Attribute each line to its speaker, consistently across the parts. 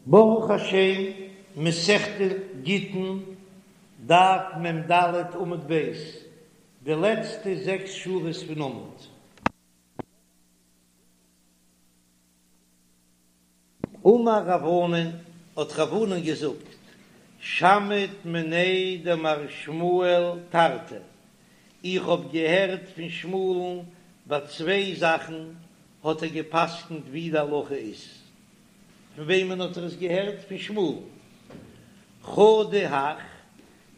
Speaker 1: ברוך השם, מסכת גיטין, דף מ"ד עמוד ב', די לעצטע זעקס שורות פון עמוד. אמר רב ענן, האט רב ענן געזאגט, שמעית מיניה דמר שמואל תרתי, איך האב געהערט פון שמואל'ן ביי צוויי זאכן האט ער גע'פסק'נט ווי די הלכה איז. פון וועמען האט ער עס געהערט? פון שמואל. חדא הך,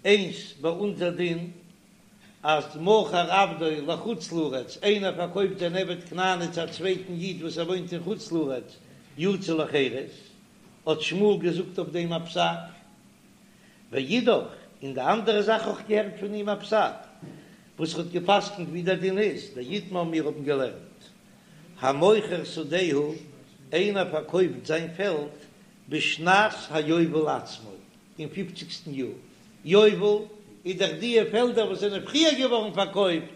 Speaker 1: איינס ביי אונזער דין אז מכר עבדו לחוץ לארץ, איינער פארקויפט זיין עבד כנעני צו א צווייטן איד וואס ער וואוינט אין חוץ לארץ, יצא לחירות, האט שמואל געזאגט אויף דעם א פסק. ואידך, און די אנדערע זאך האב איך געהערט פון אים א פסק וואס ער האט גע'פסק'נט ווי דער דין איז, דאיתמר מיר האבן געלערנט, המוכר שדהו, איינער פארקויפט זיין פעלד בשנת היובל עצמו, אין פופציגסטן יאר, יובל איז דאך דיע פעלדער וואס זענען פריער געווארן פארקויפט,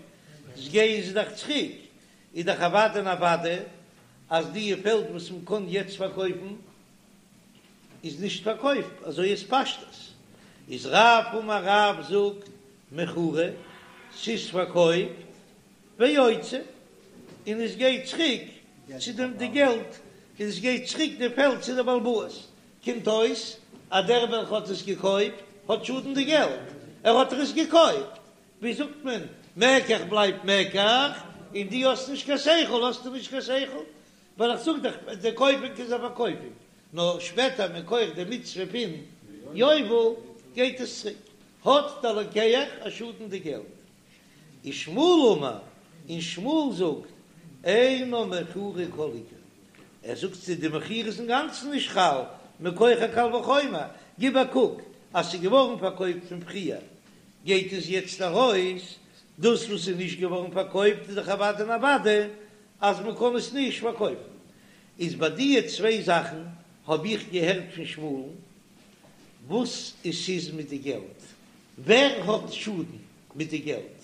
Speaker 1: גייען זיי דאך צוריק, איז דאך אוודאי און אוודאי אז דיע פעלד וואס מען קען יעצט פארקויפן איז נישט פארקויפט, אזוי איז פשטות, איז רב אמר רב זאגט מכורה, ס'איז פארקויפט, ויוצאה, און עס גייט צוריק צו דעם די געלט, און עס גייט צוריק די פעלד צו די בעל הבית, קומט אויס אז דער וועלכע האט עס געקויפט האט שאדן די געלט, ער האט דאך עס געקויפט, ווי זאגט מען, מקח בלייבט מקח, און דו האסט נישט קיין שכל האסטו נישט קיין שכל, ווייל איך זאג דאך די קויפונג איז א פארקויפונג, נאר שפעטער מכח די מצוה פון יובל גייט עס צוריק, האט דער לוקח א שאדן די געלט. ושמואל אמר, און שמואל זאגט, אינה מכורה כל עיקר, ער זאגט צו די מכירה איז אינגאנצן נישט חל מכח א קל וחומר, גיב א קוק אז ס'איז געווארן פארקויפט פון פריער, גייט עס יעצט ארויס, דאס וואס איז נישט געווארן פארקויפט איז דאך אוודאי און אוודאי אז מען קען עס נישט פארקויפן. איז ביי דיע צוויי זאכן האב איך געהערט פון שמואל'ן וואס עס איז מיט די געלט, ווער האט שאדן מיט די געלט?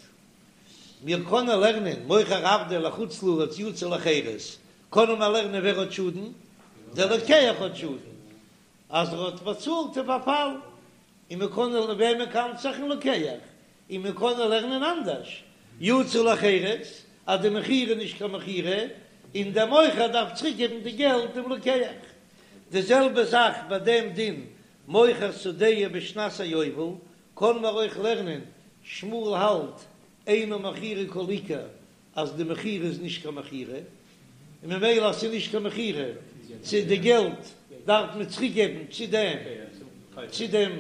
Speaker 1: מיר קענען לערנען מוכר עבדו לחוץ לארץ יצא לחירות, קענען מיר לערנען ווער האט שאדן? דער לוקח האט שאדן אז ער האט באצאלט איז פארפאלן, און מיר קענען וועמען קנס'ט זיך אין לוקח, און מיר קענען לערנען אנדערש יצא לחירות אז די מכירה איז נישט קיין מכירה און דער מוכר דארף צוריק געבן די געלט דעם לוקח. די זעלבע זאך ביי דעם דין מוכר שדהו בשנת היובל, קען מען אויך לערנען שמואל האלט אינה מכורה כל עיקר אז די מכירה איז נישט קיין מכירה, און ממילא אז ס'איז נישט קיין מכירה צו די געלט דארף מען צוריק געבן צו דעם צו דעם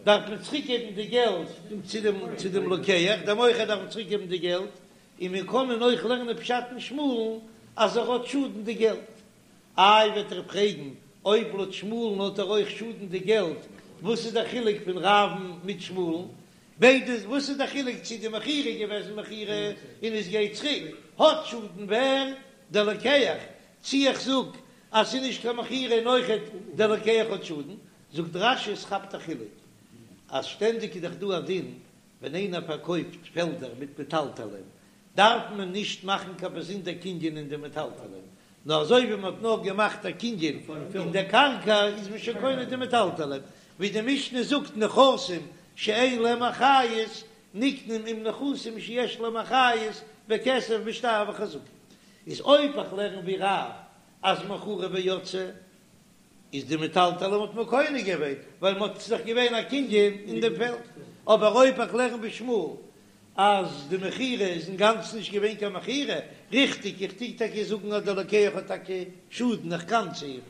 Speaker 1: דארף מען צוריק געבן די געלט צו דעם צו דעם לוקח, דער מוכר דארף צוריק געבן די געלט, און מיר קענען אויך לערנען פשט אין שמואל'ן אז ער האט שאדן די געלט. איי וועט ער פרעגן, אויב לויט שמואל'ן האט ער אויך שאדן די געלט, וואס איז דער חילוק פון רב'ן מיט שמואל'ן? ביידע, וואס איז דער חילוק צו די מכירה איז געוועזן מכירה און עס גייט צוריק, האט שאדן ווער? דער לוקח, צו איך זאג אז ס'איז נישט קיין מכירה און אויכעט דער לוקח האט שאדן, זאגט רש"י עס כאפט א חילוק אז שטענדיג איז דאך דא א דין ווען איינער פארקויפט פעלדער מיט מטלטלין דארף מען נישט מאכן קיין באזונדער קנין אין די מטלטלין, נאר אזוי ווי מען האט נאר געמאכט א קנין אין די קרקע איז מען שוין קונה די מטלטלין, ווי די משנה זאגט נכסים שאין להם אחריות נקנים עם נכסים שיש להם אחריות בכסף בשטר וחזקה, איז אויב איך לערן ווי רב אז מכורה ויוצאה איז די מטלטלין האט מען קונה געווען ווייל מען האט זיך געווען א קנין אין דעם פעלד, אבער אויב איך לערן ווי שמואל אז די מכירה איז אינגאנצן נישט געווען קיין מכירה, ריכטיג איך טו טאקע זאגן אז דער לוקח האט טאקע שאדן איך קנס אים,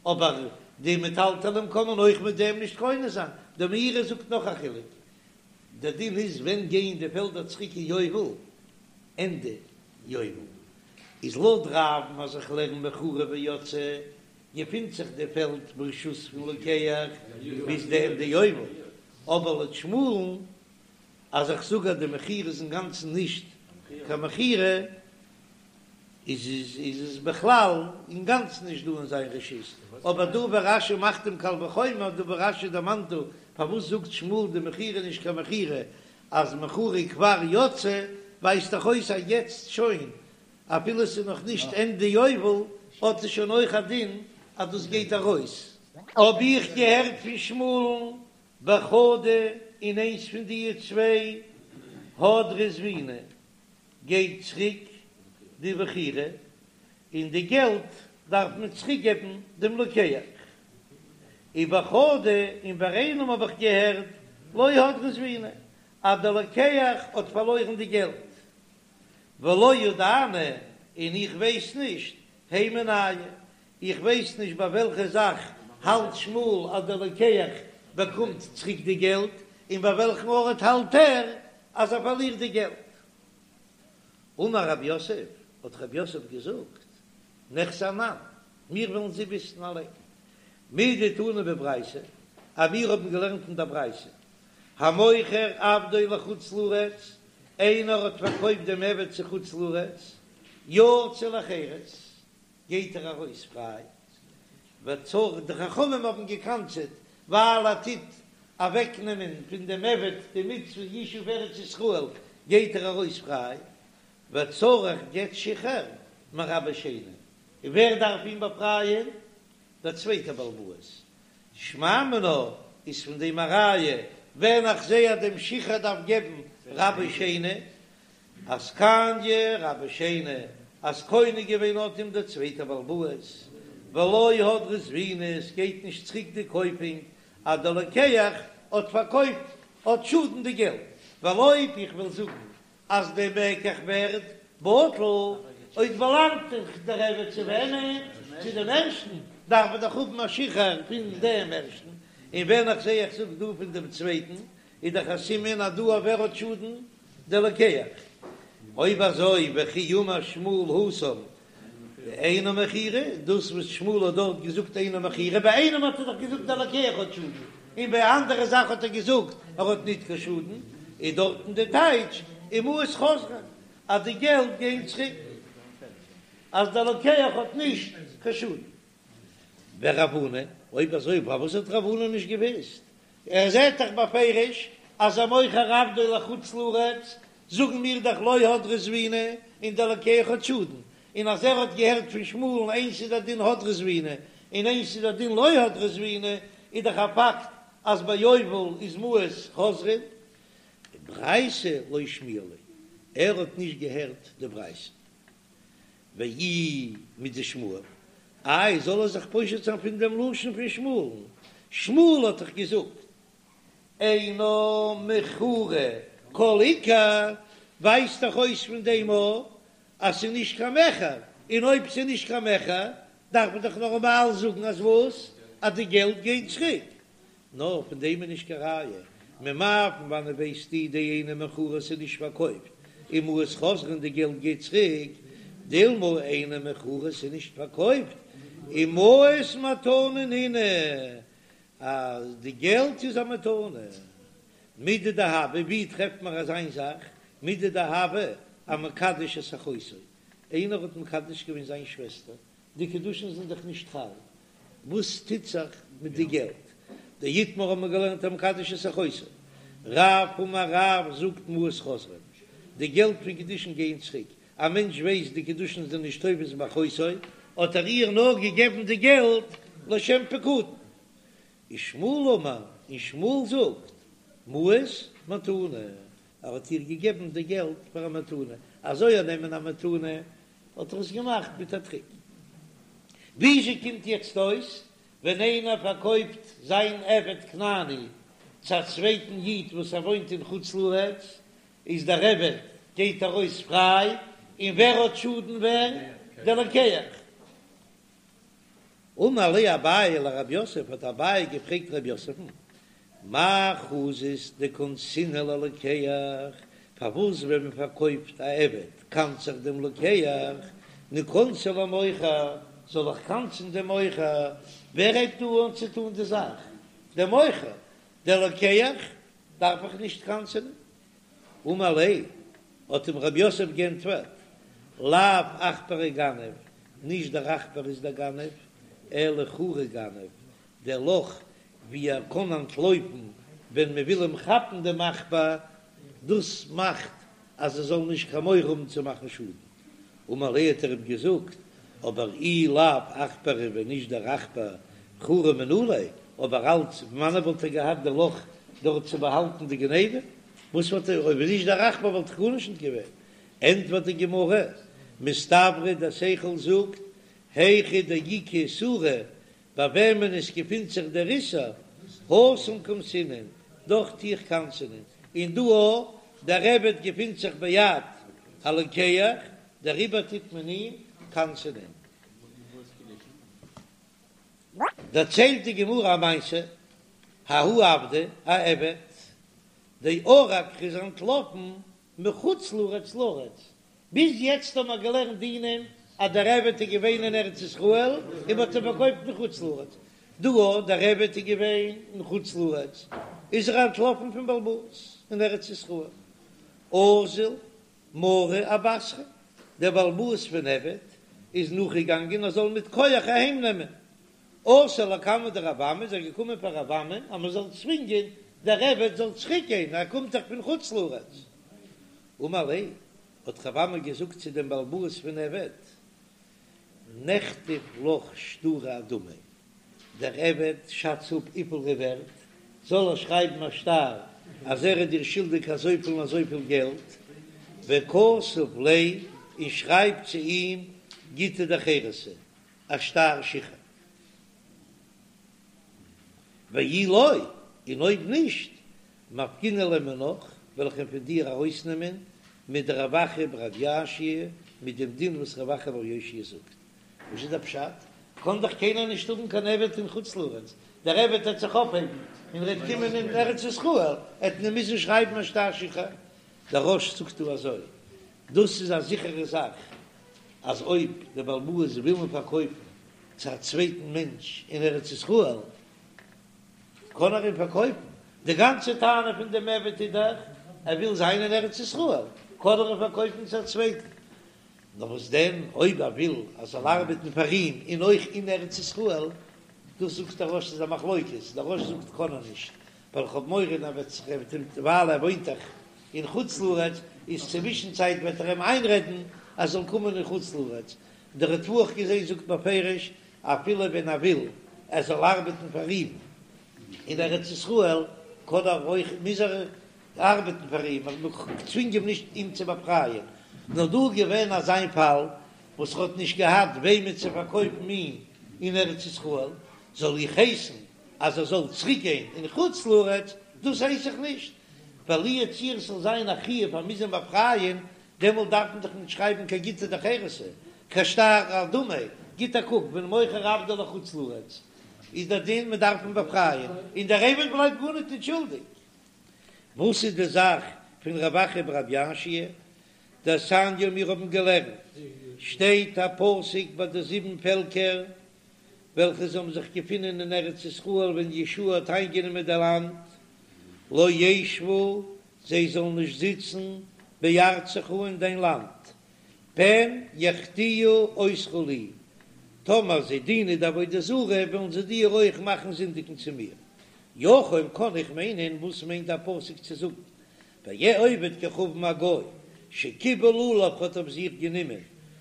Speaker 1: אבער די מטלטלין קען מען אויך מיט דעם נישט קונה זיין, דער מאירי זאגט נאך א חילוק, דער דין איז ווען גייען די פעלדער צוריק אין יובל, ענדע יובל, איז לויט רב'ן אז איך לערן מכורה ויוצאה געפינט זיך די פעלד ברשות פון לוקח ביז די ענדע יובל, אבער לויט שמואל'ן אז איך זאג אז די מכירה איז אינגאנצן נישט קיין מכירה, איז איז עס בכלל אינגאנצן נישט דא אין זיין רשות, אבער דא ווי רש"י מאכט דעם קל וחומר, דא ווי רש"י דערמאנט דא, פארוואס זאגט שמואל די מכירה איז נישט קיין מכירה, אז מכורה כבר יצאה, ווייזט דאך אויס אז יעצט שוין, אפילו עס איז נאך נישט ענדע יובל, האט עס שוין אויך א דין אז דאס גייט ארויס. האב איך געהערט פון שמואל'ן בחדא אין איינס פון די צוויי הדרא זביני גייט צוריק די מכירה און די געלט דארף מען צוריק געבן דעם לוקח. ובחדא און ביי איינעם האב איך געהערט לא הדרא זביני אז דער לוקח האט פארלוירן די געלט. ולא ידענא און איך ווייס נישט הי מינייהו איך ווייס נישט ביי וועלכע זאך האלט שמואל אז דער לוקח באקומט צוריק די געלט, און ביי וועלכן ארט האלט ער אז ער פארלירט די געלט. אמר רב יוסף, האט רב יוסף געזאגט, ניחזי אנן, מיר וועלן זי וויסן אליין. מדתנא בברייתא, אז מיר האבן געלערנט אין דער ברייתא, המוכר עבדו לחוץ לארץ, איינער האט פארקויפט דעם עבד צו חוץ לארץ, יצא לחירות, גייט ער ארויס פריי, וצריך, די חכמים האבן געקנס'עט ווייל ער טוט אוועק נעמען פון דעם עבד די מצוה ישוב ארץ ישראל, גייט ער ארויס פריי, וצריך גט שחרור מרבו שני, און ווער דארף אים באפרייען? דער צווייטער בעל הבית, שמע מינה איז פון דעם א ראיה ווען איך זעה אז דעם שחרור דארף געבן רבו שני, אז קנייה רבו שני, אז קונה געווען האט אים דער צווייטער בעל הבית, ולא הדרא זביני, עס גייט נישט צוריק די קויפינג אז דער לוקח האט פארקויפט האט שאדן די געלט, ווייל אויב איך וועל זאגן אז דער מקח ווערט בטל, אויב באלאנגט דאך דער עבד צו וועמען? צו דעם ערשטן, דארף מען דאך האבן א שחרור פון דעם ערשטן, און ווען איך זע איך זאג דא פון דעם צווייטן, איז דאך א סימן אז דא אויף ווער האט שאדן? דער לוקח. אויב אזוי וכי אמר שמואל התם אינה מכירה, דאס וואס שמואל האט דארט געזאגט אינה מכירה, ביי איינעם האט ער דאך געזאגט דער לוקח האט שאדן, און ביי א אנדערע זאך האט ער געזאגט ער האט ניט קיין שאדן, איז דארטן די טייטש ומעות חוזרין אז די געלט גייען צוריק, אז דער לוקח האט נישט קיין שאדן. ורב הונא, אויב אזוי פארוואס האט רב הונא נישט געוואוסט? ער זעט דאך בפירוש אז המוכר עבדו לחוץ לארץ, זאגן מיר דאך לא הדרא זביני און דער לוקח האט שאדן, און אז ער האט געהערט פון שמואל'ן איינס איז דער דין הדרא זביני און איינס איז דער דין לא הדרא זביני, איז דאך א פאקט אז ביי יובל איז מעות חוזרין. ברייתא לא שמיע ליה, ער האט נישט געהערט די ברייתא. ואי מדשמואל, איי זאל ער זיך פושט זיין פון דעם לשון פון שמואל'ן, שמואל האט דאך געזאגט אינה מכורה כל עיקר, ווייזט דאך אויס פון דעם א אז ס'איז נישט קיין מכר, און אויב ס'איז נישט קיין מכר דארף מען דאך נארמאל זאגן אז וואס? אז די געלט גייט צוריק. נאר פון דעם איז נישט קיין ראיה, ממאי פון וואנעט ווייסטו דאינה מכורה ס'איז נישט פארקויפט ומעות חוזרין די געלט גייט צוריק, דילמא אינה מכורה ס'איז נישט פארקויפט ומעות מתנה נינהו אז די געלט איז א מתנה. מידי דהוה ווי טרעפט מען אזיין זאך מידי דהוה אמקדש את אחותו איינער האט מקדש געווען זיין שוועסטער די קידושין זענען דאך נישט חל, וואס טוט זיך מיט די געלט? דאיתמר האבן מיר געלערנט המקדש את אחותו, רב אמר רב זאגט מעות חוזרין, די געלט פון קידושין גייען צוריק, א מענטש ווייסט די קידושין זענען נישט תופס באחותו, האט ער איר נאר געגעבן די געלט לשם פקדון. ושמואל אמר, און שמואל זאגט, מעות מתנה, ער האט איר געגעבן די געלט פאר א מתנה, אזוי אננעמען א מתנה האט ער עס געמאכט מיט א טריק. וויאזוי קומט יעצט אויס ווען איינער פארקויפט זיין עבד כנעני צו א צווייטן איד וואס ער וואוינט אין חוץ לארץ, איז דער עבד גייט ארויס פריי, און ווער האט שאדן ווער? דער לוקח. אמר ליה אביי לרב יוסף, האט אביי געפרעגט רב יוסף'ן, מאי חזית דקנסינהו ללוקח, פארוואס ווען מען פארקויפט א עבד קנס איך דעם לוקח, ניקנסיה למוכר, זאל איך קנס'ן דעם מוכר, ווער הייבט דא אן צו טון די זאך? דער מוכר, דער לוקח דארף איך נישט קנס'ענען. אמר ליה, האט אים רב יוסף גענטפערט, לאו עכברא גנב, נישט דער עכבר איז דער גנב, אלא חורא גנב, דער לאך ווי ער קען אנטלויפן ווען מען וויל אים כאפן דעם עכבר, דאס מאכט אז ער זאל נישט קיין מורא האבן צו מאכן שאדן. אמר ליה האט ער אים געזאגט, אבער אי לאו עכברא ווען נישט דער עכבר. חורא מנא ליה, אבער אלץ פון וואנען וואלט ער געהאט די לאך דארט צו באהאלטן די גניבה? וואס וואלט ער, אויב נישט דער עכבר וואלט דאך גארנישט נישט געווען. ענטפערט די גמרא, מסתברא דער שכל זאגט, היכא דאיכא איסורא, ביי וועמען עס געפינט זיך דער איסור, התם קנסינן, דארט טו איך קנס'ענען, און דא אויך, דער עבד געפינט זיך ביד הלוקח, דעריבער טוט מען אים קנס'ענען. דערציילט די גמרא א מעשה, ההוא עבדא, א עבד, דערק איז אנטלאפן מחוץ לארץ לארץ, ביז יעצט האבן מיר געלערנט דינים אז דער עבד איז געווען אין ארץ ישראל און מען האט אים פארקויפט אין חוץ לארץ, דא אויך דער עבד איז געווען אין חוץ לארץ איז ער אנטלאפן פון בעל הבית אין ארץ ישראל, אזל מרא אבתריה, דער בעל הבית פון עבד איז נאכגעגאנגען ער זאל מיט כח אהיים נעמען, אתא לקמיה דרב אמי איז ער געקומען פאר רב אמי אז מען זאל צווינגען דער עבד זאל צוריק גיין ער קומט דאך פון חוץ לארץ, אמר ליה, האט רב אמי געזאגט צו דעם בעל הבית פון עבד, נכתוב לך שטרא אדמיה, דער עבד שאץ אפ וויפיל ער ווערט, זאל ער שרייבן א שטר אז ער איז דיר שולדיג אזויפיל און אזויפיל געלט, וכתוב ליה, און שרייב צו אים גיטא דחירותא, א שטר שחרור. ואי לא, און אויב נישט, מפקינן ליה מינך, וועל איך אים פון דיר ארויסנעמען, מדרב אחא ברב יאשיה, מיט דעם דין וואס רב אחא בר יאשיה זאגט. וואס איז דער פשט? קען דאך קיינער נישט האבן קיין עבד אין חוץ לארץ, דער עבד העט זיך אויפהייבן און ער העט קומען אין ארץ ישראל, העט מען מוזן שרייבן א שטר שחרור. דער רא"ש זאגט דא אזוי, דאס איז א זיכערע זאך אז אויב דער בעל הבית וויל אים פארקויפן צו א צווייטן מענטש אין ארץ ישראל, קען ער אים פארקויפן, די גאנצע טענה פון דעם עבד איז דאך ער וויל זיין אין ארץ ישראל, קען ער אים פארקויפן צו א צווייטן, נאר וואס דען אויב ער וויל אז זאל ארבעטן פאר אים און אויך אין ארץ ישראל, דאס זאגט דער רא"ש איז א מחלוקת, דער רא"ש זאגט קען ער נישט, ווייל איך האב מורא ער וועט זיך ווייל ער וואוינט דאך אין חוץ לארץ, איז צווישן צייט וועט ער אים איינרעדן אז זאל קומען אין חוץ לארץ, דער ריטב"א האב איך געזען זאגט בפירוש אפילו ווען ער וויל ער זאל ארבעטן פאר אים אין ארץ ישראל קען ער אויך מוז ער ארבעטן פאר אים אז מען צווינגט אים נישט אים צו באפרייען, נאר דא איז געווען אזא פאל וואס ער האט נישט געהאט וועמען צו פארקויפן אים אין ארץ ישראל, זאל איך הייסן אז ער זאל צוריק גיין אין חוץ לארץ, דאס הייס איך נישט, ווייל לו יצוייר ס'זאל זיין א חיוב אז מ'מוז אים באפרייען, דעמאלט דארף מען דאך נישט שרייבן קיין גיטא דחירותא, קיין שטר אדמיה, גיט א קוק ווען מוכר עבדו לחוץ לארץ איז דער דין מען דארף אים באפרייען, און דער עבד בלייבט גארניט נישט שולדיג. וואס איז די זאך פון רב אחא ברב יאשיה? דתניא מיר האבן געלערנט, שטייט א פסוק ביי די זיבן פעלקער וועלכע זיי האבן זיך געפונען אין ארץ ישראל ווען יהושע האט איינגענומען די לאנד, לא ישבו, זיי זאלן נישט זיצן, בארצך אין דיין לאנד, פן יחטיאו אותך לי, טאמער זיי דינען די עבודה זרה וועלן זיי דיר אויך מאכן זינדיגן צו מיר. יכול קען איך מיינען, וואס מיינט דער פסוק צו זאגן, ועובד כוכבים א גוי שקיבל עליו האט אויף זיך גענומען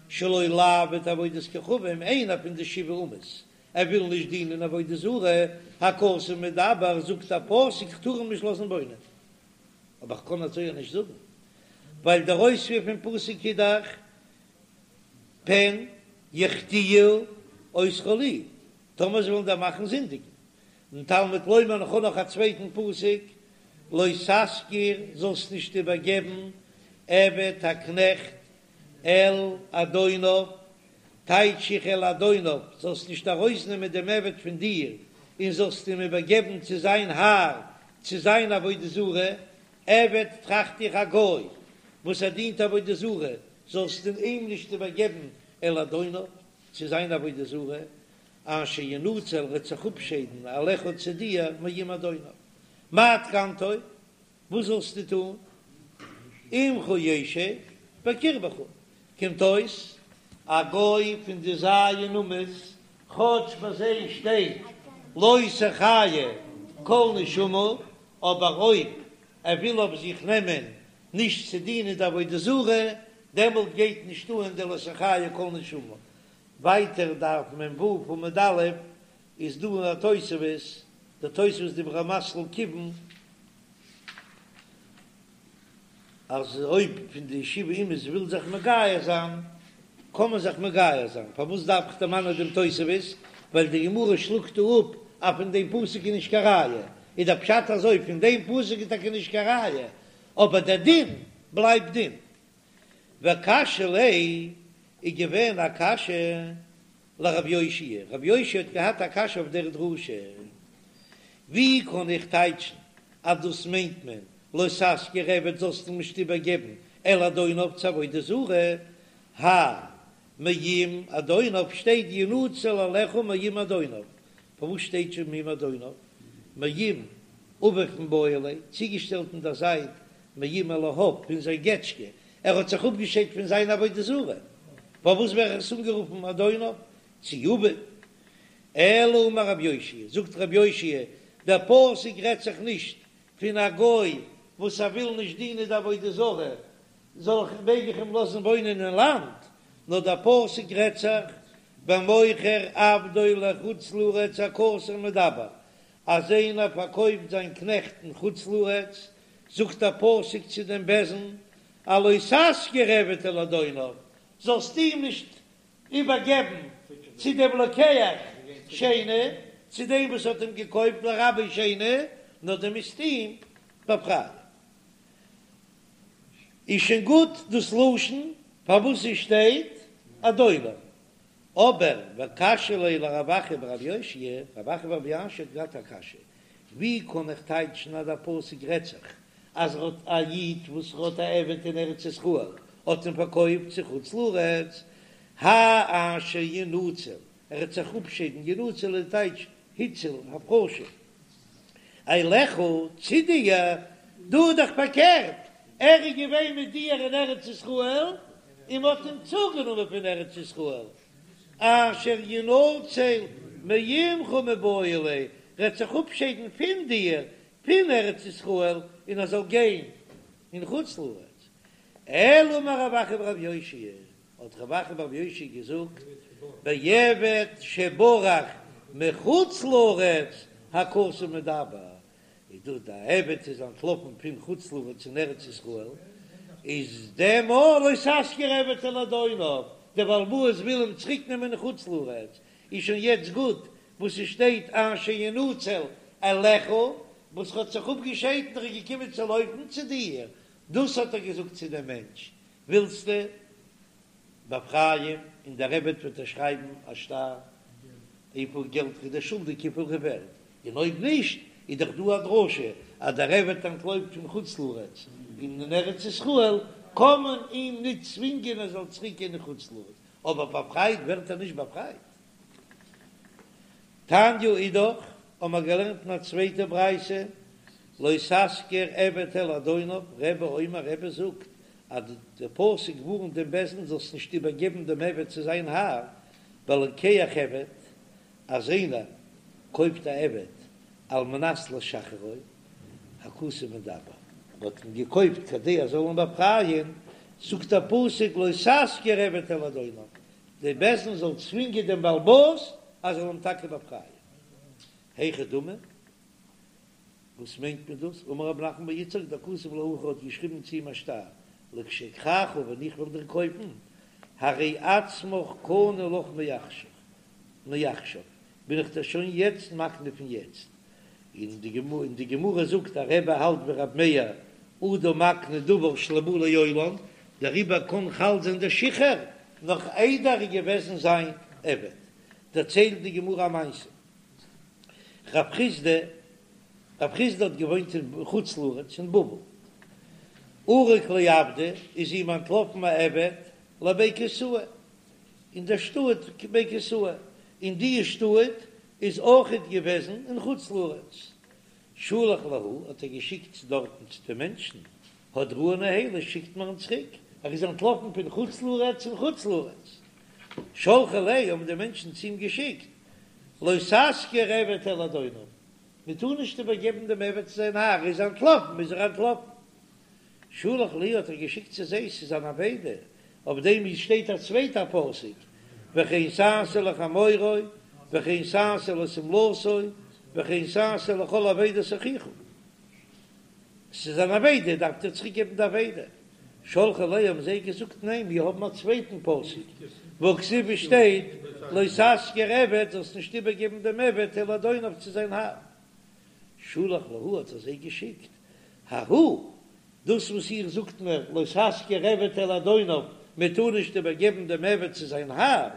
Speaker 1: שלא לעבוד עבודת כוכבים, איינער פון די שבעה אומות, ער וויל נישט דינען עבודה זרה, הכתוב מדבר, זאגט א פסוק כ'טאר אים נישט לאזן וואוינען, אבער כ'קען אזוי נישט זאגן, ווייל דער אויספיר פון פסוק איז דאך פן יחטיאו אותך לי, טאמער זיי וועלן דיר מאכן זינדיגן, און תלמוד לומר נאך נאך א צווייטן פסוק, לא תסגיר, זאלסט נישט איבערגעבן עבד א קנעכט אל אדוניו, טייטש איך אל אדוניו, זאלסט נישט ארויסנעמען דעם עבד פון דיר און זאלסט אים איבערגעבן צו זיין האר, צו זיין עבודה זרה, עבד טראכט איך א גוי וואס ער דינט עבודה זרה, זאלסט אים נישט איבערגעבן אל אדוניו, צו זיין עבודה זרה, אשר ינצל וועט זיך אפשיידן אליך צו דיר מעם אדוניו. מה תקנתו, וואס זאלסטו טון? עמך ישב בקרבך, קומט אויס א גוי פון די ז' אומות, כאטש ביי זיי שטייט לא תחיה כל נשמה, אבער אויב ער וויל אויף זיך נעמען נישט צו דינען די עבודה זרה, דעמאלט גייט נישט אן די לא תחיה כל נשמה, ווייטער דף מ"ו עמוד א'. איז דא אין א תוספות, דער תוספות דיבור המתחיל כיוון אז אויב פון די שבעה אומות וויל זיך מגייר זיין, קען מען זיך מגייר זיין, פארוואס דארף איך דערמאנען דעם תוספות, ווייל די גמרא שלאגט דא אפ אז פון דעם פסוק איז נישט קיין ראיה, איז דער פשט אזוי, פון דעם פסוק איז טאקע נישט קיין ראיה, אבער דער דין בלייבט דין. וקשיא ליה איז געווען א קשיא לרב יאשיה, רב יאשיה האט געהאט א קשיא אויף דער דרשה, ווי קען איך טייטשן אז דאס מיינט מען לא תסגיר עבד זאלסט אים נישט איבערגעבן אל אדוניו צו עבודה זרה, האי מעם אדוניו שטייט ינצל אליך מעם אדוניו, פארוואס שטייט שוין מעם אדוניו? מעם אביו מיבעי ליה, צוגעשטעלט אין דער זייט מעם אלהיו פון זיין געטשקע, ער האט זיך אפגעשיידט פון זיין עבודה זרה, פארוואס ווערט עס אנגערופן אדוניו צו אביו? אלא אמר רב יאשיה, זאגט רב יאשיה, דער פסוק רעדט זיך נישט פון א גוי וואס ער וויל נישט דינען די עבודה זרה, זאל איך מעג איך אים לאזן וואוינען אין לאנד, נאר דער פסוק רעדט זיך במוכר עבדו לחוץ לארץ הכתוב מדבר, אז איינער פארקויפט זיין קנעכט אין חוץ לארץ, זאגט דער פסוק צו דעם בית דין, אז לא תסגיר עבד אל אדוניו, זאלסט אים נישט איבערגעבן צו דעם לוקח שני, צו דעם וואס האט אים געקויפט לרבו שני, נאר דו מוזט אים באפרייען. איז שוין גוט דאס לשון פארוואס עס שטייט אדוניו, אבער וקשיא ליה לרב אחא ברב יאשיה, רב אחא ברב יאשיה האט געהאט א קשיא, ווי קען איך טייטשן אז דער פסוק רעדט זיך אז ער האט א איד וואס האט א עבד אין ארץ ישראל האט אים פארקויפט צו חוץ לארץ, האי אשר ינצל, ער וועט זיך אפשיידן, ינצל איז טייטש הציל הפרשה, אליך צו דיר, דא איז דאך פארקערט, ער איז געווען מיט דיר אין ארץ ישראל און מען האט אים צוגענומען פון ארץ ישראל, אשר ינצל מעמך מיבעי ליה, ער וועט זיך אפשיידן פון דיר, פון ארץ ישראל, און ער זאל גיין אין חוץ לארץ. אלא אמר רב אחא ברב יאשיה, האט רב אחא ברב יאשיה געזאגט, בעבד שברח מחוץ לארץ הכתוב מדבר, איז דא די עבד איז אנטלאפן פון חוץ לארץ אין ארץ ישראל, איז דעמאלט לא תסגיר עבד אל אדוניו, דער בעל הבית וויל אים צוריק נעמען אין חוץ לארץ, איז שוין יעצט גוט וואס עס שטייט אשר ינצל אליך, וואס האט זיך אפגעשיידט און ער איז געקומען צו לויפן צו דיר, דאס האט ער געזאגט צו דעם מענטש, ווילסטו באפרייען און דער עבד וועט דיר שרייבן א שטר וויפיל געלט ר'איז דיר שולדיג וויפיל ר'איז ווערט, און אויב נישט איז דאך דא א דרשה אז דער עבד אנטלויפט פון חוץ לארץ און אין ארץ ישראל קען מען אים ניט צווינגען ער זאל צוריק גיין אין חוץ לארץ, אבער באפרייט ווערט ער נישט באפרייט. תניא אידך, האבן מיר געלערנט אין א צווייטע ברייתא, לא תסגיר עבד אל אדוניו, רבי אומר רבי זאגט אז די פסוק ווארנט דעם בית דין זאלסט נישט איבערגעבן דעם עבד צו זיין האר, בלוקח עבד, אז איינער קויפט א עבד על מנת לשחררו, הכתוב מדבר, מען האט אים געקויפט כדי ער זאל אים באפרייען, זאגט דער פסוק לא תסגיר עבד אל אדוניו, די בית דין זאל צווינגען דעם בעל הבית אז ער זאל אים טאקע באפרייען. היכי דמי, וואס מיינט מען דאס? אמר רב נחמן בר יצחק דכתב ליה הכי האט געשריבן צו אים א שטר, לכשאקחך ווען איך וועל דיר קויפן, הרי עצמך קנוי לך מעכשיו, בין איך דיר שוין יעצט מקנה פון יעצט. און די גמרא זאגט אז רבי האלט ווי רבי מאיר, אדם מקנה דבר שלא בא לעולם, דעריבער קען חל זיין דער שחרור נאך איידער ער איז געוועזן זיין עבד. דערציילט די גמרא א מעשה, רב חסדא, רב חסדא האט געוואוינט אין חוץ לארץ אין בבל, ערק ליה עבדא איז אים אנטלאפן א עבד לבי כותאי, אין דער שטאט בי כותאי, און די שטאט איז אויכעט געוועזן אין חוץ לארץ, שלח להו האט ער געשיקט דארטן צו די מענטשן, הדרוה ניהליה שיקט מיר אים צוריק, ער איז אנטלאפן פון חוץ לארץ אין חוץ לארץ, שלחו ליה האבן די מענטשן צו אים געשיקט, לא תסגיר עבד אל אדוניו, מען טאר נישט איבערגעבן דעם עבד צו זיין האר, ער איז אנטלאפן איז ער אנטלאפן. שלח להו האט ער געשיקט צו זיי, ס'איז אן אבידה, אויף דעם שטייט א צווייטע פסוק, וכן תעשה לחמורו. וכן תעשה לשמלתו, וכן תעשה לכל אבידת אחיך. ס'איז אן אבידה, דארפט איר צוריק געבן די אבידה. שלחו ליה האבן זיי געזאגט ניין, מיר האבן א צווייטן פסוק, והכתיב שטייט לא תסגיר עבד, זאלסט נישט איבערגעבן דעם עבד אל אדוניו צו זיין האר. שלח להו האט ער זיי געשיקט, ההוא, דאס וואס איר זאגט מיר לא תסגיר עבד אל אדוניו, מען טאר נישט איבערגעבן דעם עבד צו זיין האר,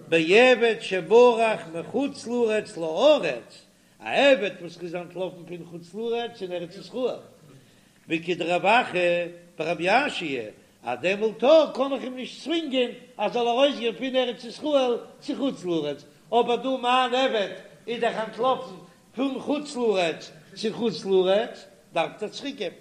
Speaker 1: בעבד שברח מחוץ לארץ לארץ, א עבד וואס איז אנטלאפן פון חוץ לארץ אין ארץ ישראל, וכדרב אחא ברבי יאשיה, אז דעמאלט קען איך אים נישט צווינגען אז זאל ארויסגיין פון ארץ ישראל צו חוץ לארץ, אבער דא מיין עבד איז דאך אנטלאפן פון חוץ לארץ צו חוץ לארץ, דארף ער צוריק געבן.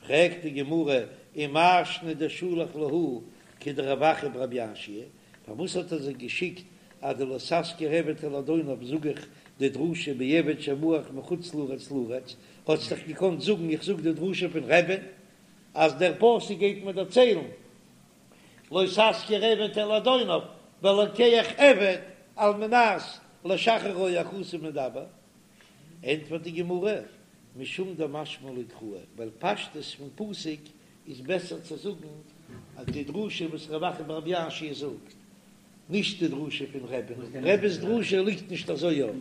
Speaker 1: פרעגט די גמרא, ומאי שנא דשלח להו כדרב אחא ברבי יאשיה, פארוואס האט ער זיי געשיקט אז די לא תסגיר עבד אל אדוניו זאג איך די דרשה בעבד שברח מחוץ לארץ לארץ, האסט דאך געקאנט זאגן איך זאג די דרשה פון רבי'ן אז דער פסוק גייט מיר דערציילן לא תסגיר עבד אל אדוניו בלוקח עבד על מנת לשחררו הכתוב מדבר, ענטפערט די גמרא, משום דמשמע ליה קראי, ווייל פשטות פון פסוק איז בעסער צו זאגן אז די דרשה וואס רב אחא ברבי יאשיה זאגט, נישט די דרשה פון רבי'ן, רבי'ס דרשה ליגט נישט אזוי אויף.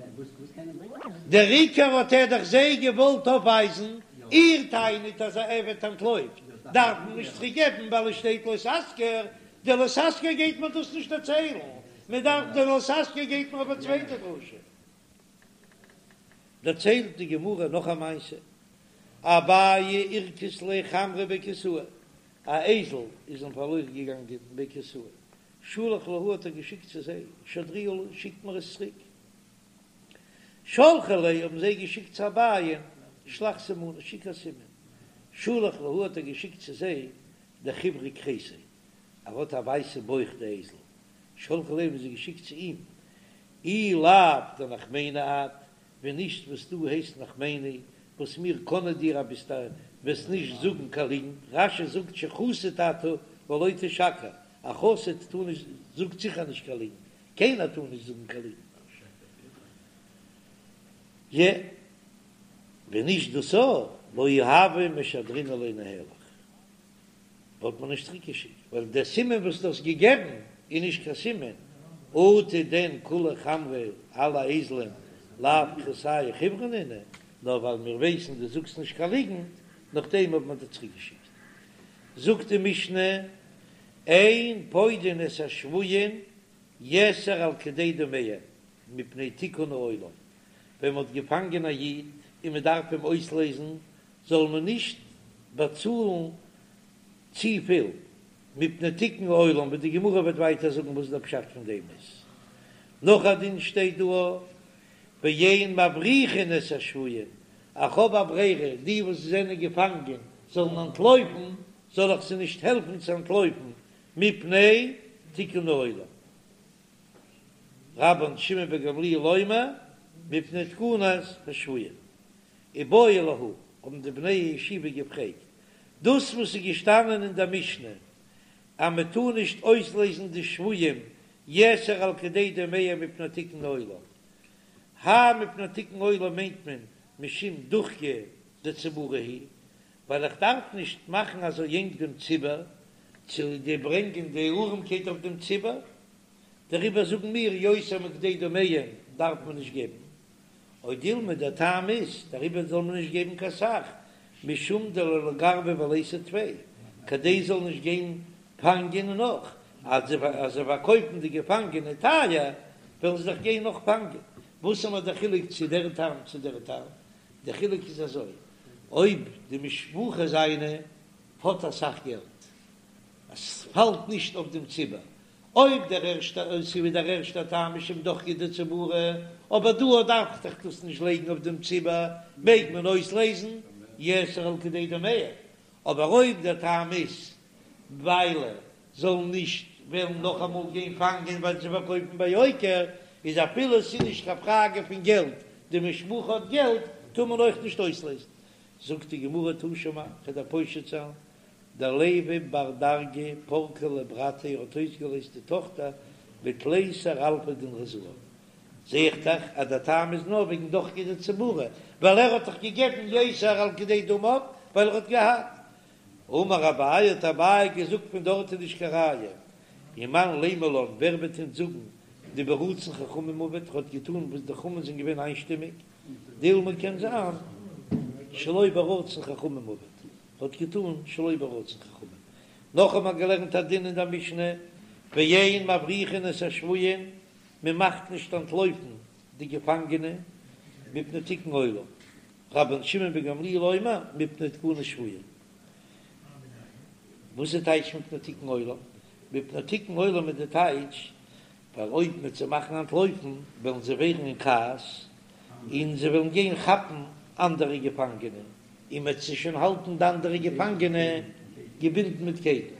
Speaker 1: דער עיקר האט ער דאך זיי געוואלט אויפווייזן, איר טענה'ט אז א עבד אנטלויפט דארף מען נישט צוריק געבן ווייל עס שטייט לא תסגיר, די לא תסגיר גייט מען דאס נישט דערציילן, מען דארף די לא תסגיר גייט מען אויף א צווייטע דרשה. דערציילט די גמרא נאך א מעשה, אביי אירכס ליה חמרא בי כותאי, א אייזל איז אים פארלוירן געגאנגען בי כותאי, שלח להו האט ער געשיקט צו זיי, שדרוה לי, שיקט מיר עס צוריק. שלחו ליה האבן זיי געשיקט צו אביי'ן, שלח סימנא, שיק א סימן. שלח להו האט ער געשיקט צו זיי, דחיוורא כריסיה, ער האט א ווייסע בויך די אייזל. שלחו ליה האבן זיי געשיקט צו אים, אי לאו דנחמני את, ווען נישט וואס דו הייסט נחמני, וואס מיר קענען דיר אז ביסט א וועסט נישט זאגן קיין ליגנט, רש"י זאגט שחסיד אתה ולא תשקר, א חסיד טאר נישט זאגט זיכער נישט קיין ליגנט, קיינער טאר נישט זאגן קיין ליגנט. י. ווען נישט דאס א לא הוה משדרנא ליה ניהלך. וואלט מען נישט צוריק געשיקט, ווייל דער סימן וואס דו האסט געגעבן איז נישט קיין סימן, אטו דען כולהו חמרי אלע אייזלען לאו כריסייהו חיוורא נינהו, נאר ווייל מיר ווייסן דו זאגסט נישט קיין ליגנט, נאכדעם האט מען דיר צוריק געשיקט. זאגט די משנה, אין פודין את השבויים יתר על כדי דמיהם מפני תיקון העולם, ווען מען האט געפאנגען א איד און מען דארף אים אויסלייזן, זאל מען נישט באצאלן צופיל מפני תיקון העולם, ווי די גמרא וועט ווייטער זאגן וואס דער פשט פון דעם איז. נאך א דין שטייט דא, ואין מבריחין את השבויים, איך האב א ברירה, די וואס זענען געפאנגען זאלן אנטלויפן, זאל איך זיי נישט העלפן צו אנטלויפן מפני תיקון העולם. רבן שמעון בן גמליאל אומר מפני תקנת השבויים. איבעיא להו, האבן די בני הישיבה געפרעגט, דאס וואס איז געשטאנען אין דער משנה אז מען טאר נישט אויסלייזן די שבויים יתר על כדי דמיהם מפני תיקון העולם, האי מפני תיקון העולם מיינט מען משום דוחקא דציבורא הוא, ווייל איך דארף נישט מאכן אזוי ענג דעם ציבור צו ברענגען די ארעמקייט אויף דעם ציבור, דעריבער זאגן מיר יותר מכדי דמיהם דארף מען נישט געבן. או דילמא דער טעם איז, דעריבער זאל מען נישט געבן קיין סך, משום דלא ליגרבו וליתו טפי, כדי זאל נישט גיין פאנגען און נאך, אז זיי פארקויפן די געפאנגענע טייער, וועלן זיי דאך גיין נאך פאנגען. וואס איז מיר דער חילוק צו דער טעם צו דער טעם? דער חילוק איז אזוי, אויב די משפחה זיינע האט אסאך געלט, עס פאלט נישט אויף דעם ציבור, אויב דער ערשטער אזוי ווי דער ערשטער טעם משום דוחקא דציבורא, אבער דא דארף איך דאס נישט לייגן אויף דעם ציבור, מעג מען אויסלייזן יתר על כדי דמיהם, אבער אויב דער טעם איז ווייל זאלן נישט וועלן נאכאמאל גיין פאנגען ווייל זיי פארקויפן ביוקר, איז אפילו עס איז נישט קיין פראגע פון געלט, די משפחה האט געלט, טאר מען אויך נישט אויסלייזן. זאגט די גמרא תא שמע, כ'וועל דיר פושט זיין, דלוי בר דרגא פרקה לברתיה האט אויסגעלייזט די טאכטער בתליסר אלפי דינרי זהב. זע איך דאך אז דער טעם איז נאר וועגן דוחקא דציבורא, ווייל ער האט דאך געגעבן יותר על כדי דמיו ווייל ער האט געהאט. אמר אביי האט אביי געזאגט פון דארט איז נישט קיין ראיה, ומאן לימא לן ווער וועט אונז זאגן דברצון חכמים עבד ער האט געטון וואס די חכמים זענען געווען איינשטימיג, דילמא קען זיין שלא ברצון חכמים עבד האט געטון שלא ברצון חכמים. נאך האט מען געלערנט א דין אין דער משנה ואין מבריחין את השבויים מען מאכט נישט אנטלויפן די געפאנגענע מפני תיקון עולם, רבן שמעון בן גמליאל אומר מפני תקנת שבויים. וואס איז טייטש מפני תיקון עולם? מפני תיקון עולם איז די טייטש ווייל אויב מ'וועט זיי מאכן אנטלויפן וועלן זיי ווערן אין כעס און זיי וועלן גיין כאפן אנדערע געפאנגענע און מ'וועט זיי שוין האלטן די אנדערע געפאנגענע געבינדן מיט קייטן.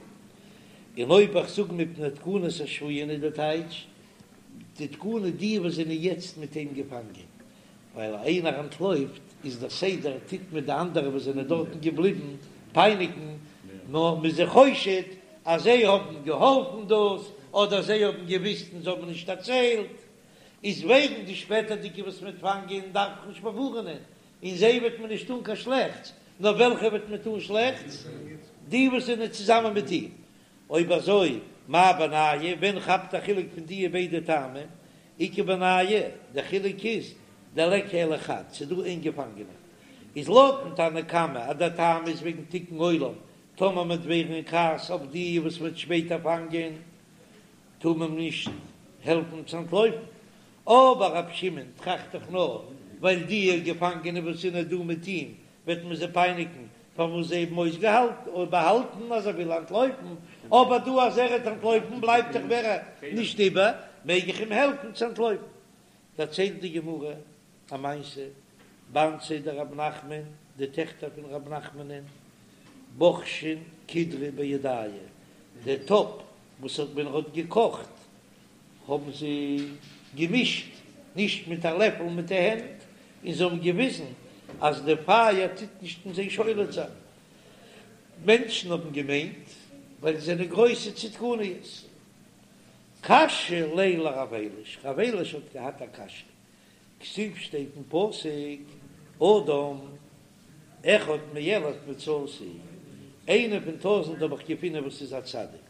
Speaker 1: און אויב איך זאג מפני תקנת השבויים איז די טייטש די תקנה די וואס זענען יעצט מיט אים געפאנגען, ווייל איינער אנטלויפט איז דער סדר טוט מען די אנדערע וואס זענען דארטן געבליבן פייניגן, נאר מ'איז זיי חושד אז זיי האבן געהאלפן דאס, אדער זיי האבן געוויסט און זיי האבן נישט דערציילט, איז וועגן די שפעטערדיגע וואס מ'וועט פאנגען דארף איך נישט באווארענען, און זיי וועט מען נישט טון קיין שלעכטס, נאר וועלכע וועט מען טון שלעכטס? די וואס זענען צוזאמען מיט אים. אויב אזוי, מאי בינייהו, ווען כאפט א חילוק פון דיע ביידע טעמים? איכא בינייהו, דער חילוק איז, דליכא אלא חד, ס'איז דא איין געפאנגענער. איז לויטן תנא קמא אז דער טעם איז וועגן תיקון עולם, טאמער מ'וועט ווערן אין כעס אויף די וואס מ'וועט שפעטער פאנגען, טאר מען נישט העלפן צו אנטלויפן. אבער רב שמעון טראכט דאך נאר ווייל די געפאנגענע וואס זענען דא מיט אים וועט מען זיי פייניגן פארוואס זיי האבן אויסגעהאלטן און באהאלטן אז ער וויל אנטלויפן, אבער דא אז ער וועט אנטלויפן בלייבט דאך מער נישט איבער, מעג איך אים העלפן צו אנטלויפן. דערציילט די גמרא א מעשה, בנתיה דרב נחמן, די טעכטער פון רב נחמנ'ן, בחשן קדרא בידייהו, די טאפ וואס האט מען האט געקאכט האבן זיי געמישט, נישט מיט א לעפל מיט די הענט, און זיי האבן געוויזן אז די פייער טוט נישט אין זיי שולט זיין. מענטשן האבן געמיינט ווייל זיי זענען גרויסע צדקניות. קשיא ליה לרב עיליש, רב עיליש האט געהאט א קשיא, כתיב שטייט אין פסוק אדם אחד מאלף מצאתי, איינער פון טויזענט האב איך געפונען וואס איז א צדיק,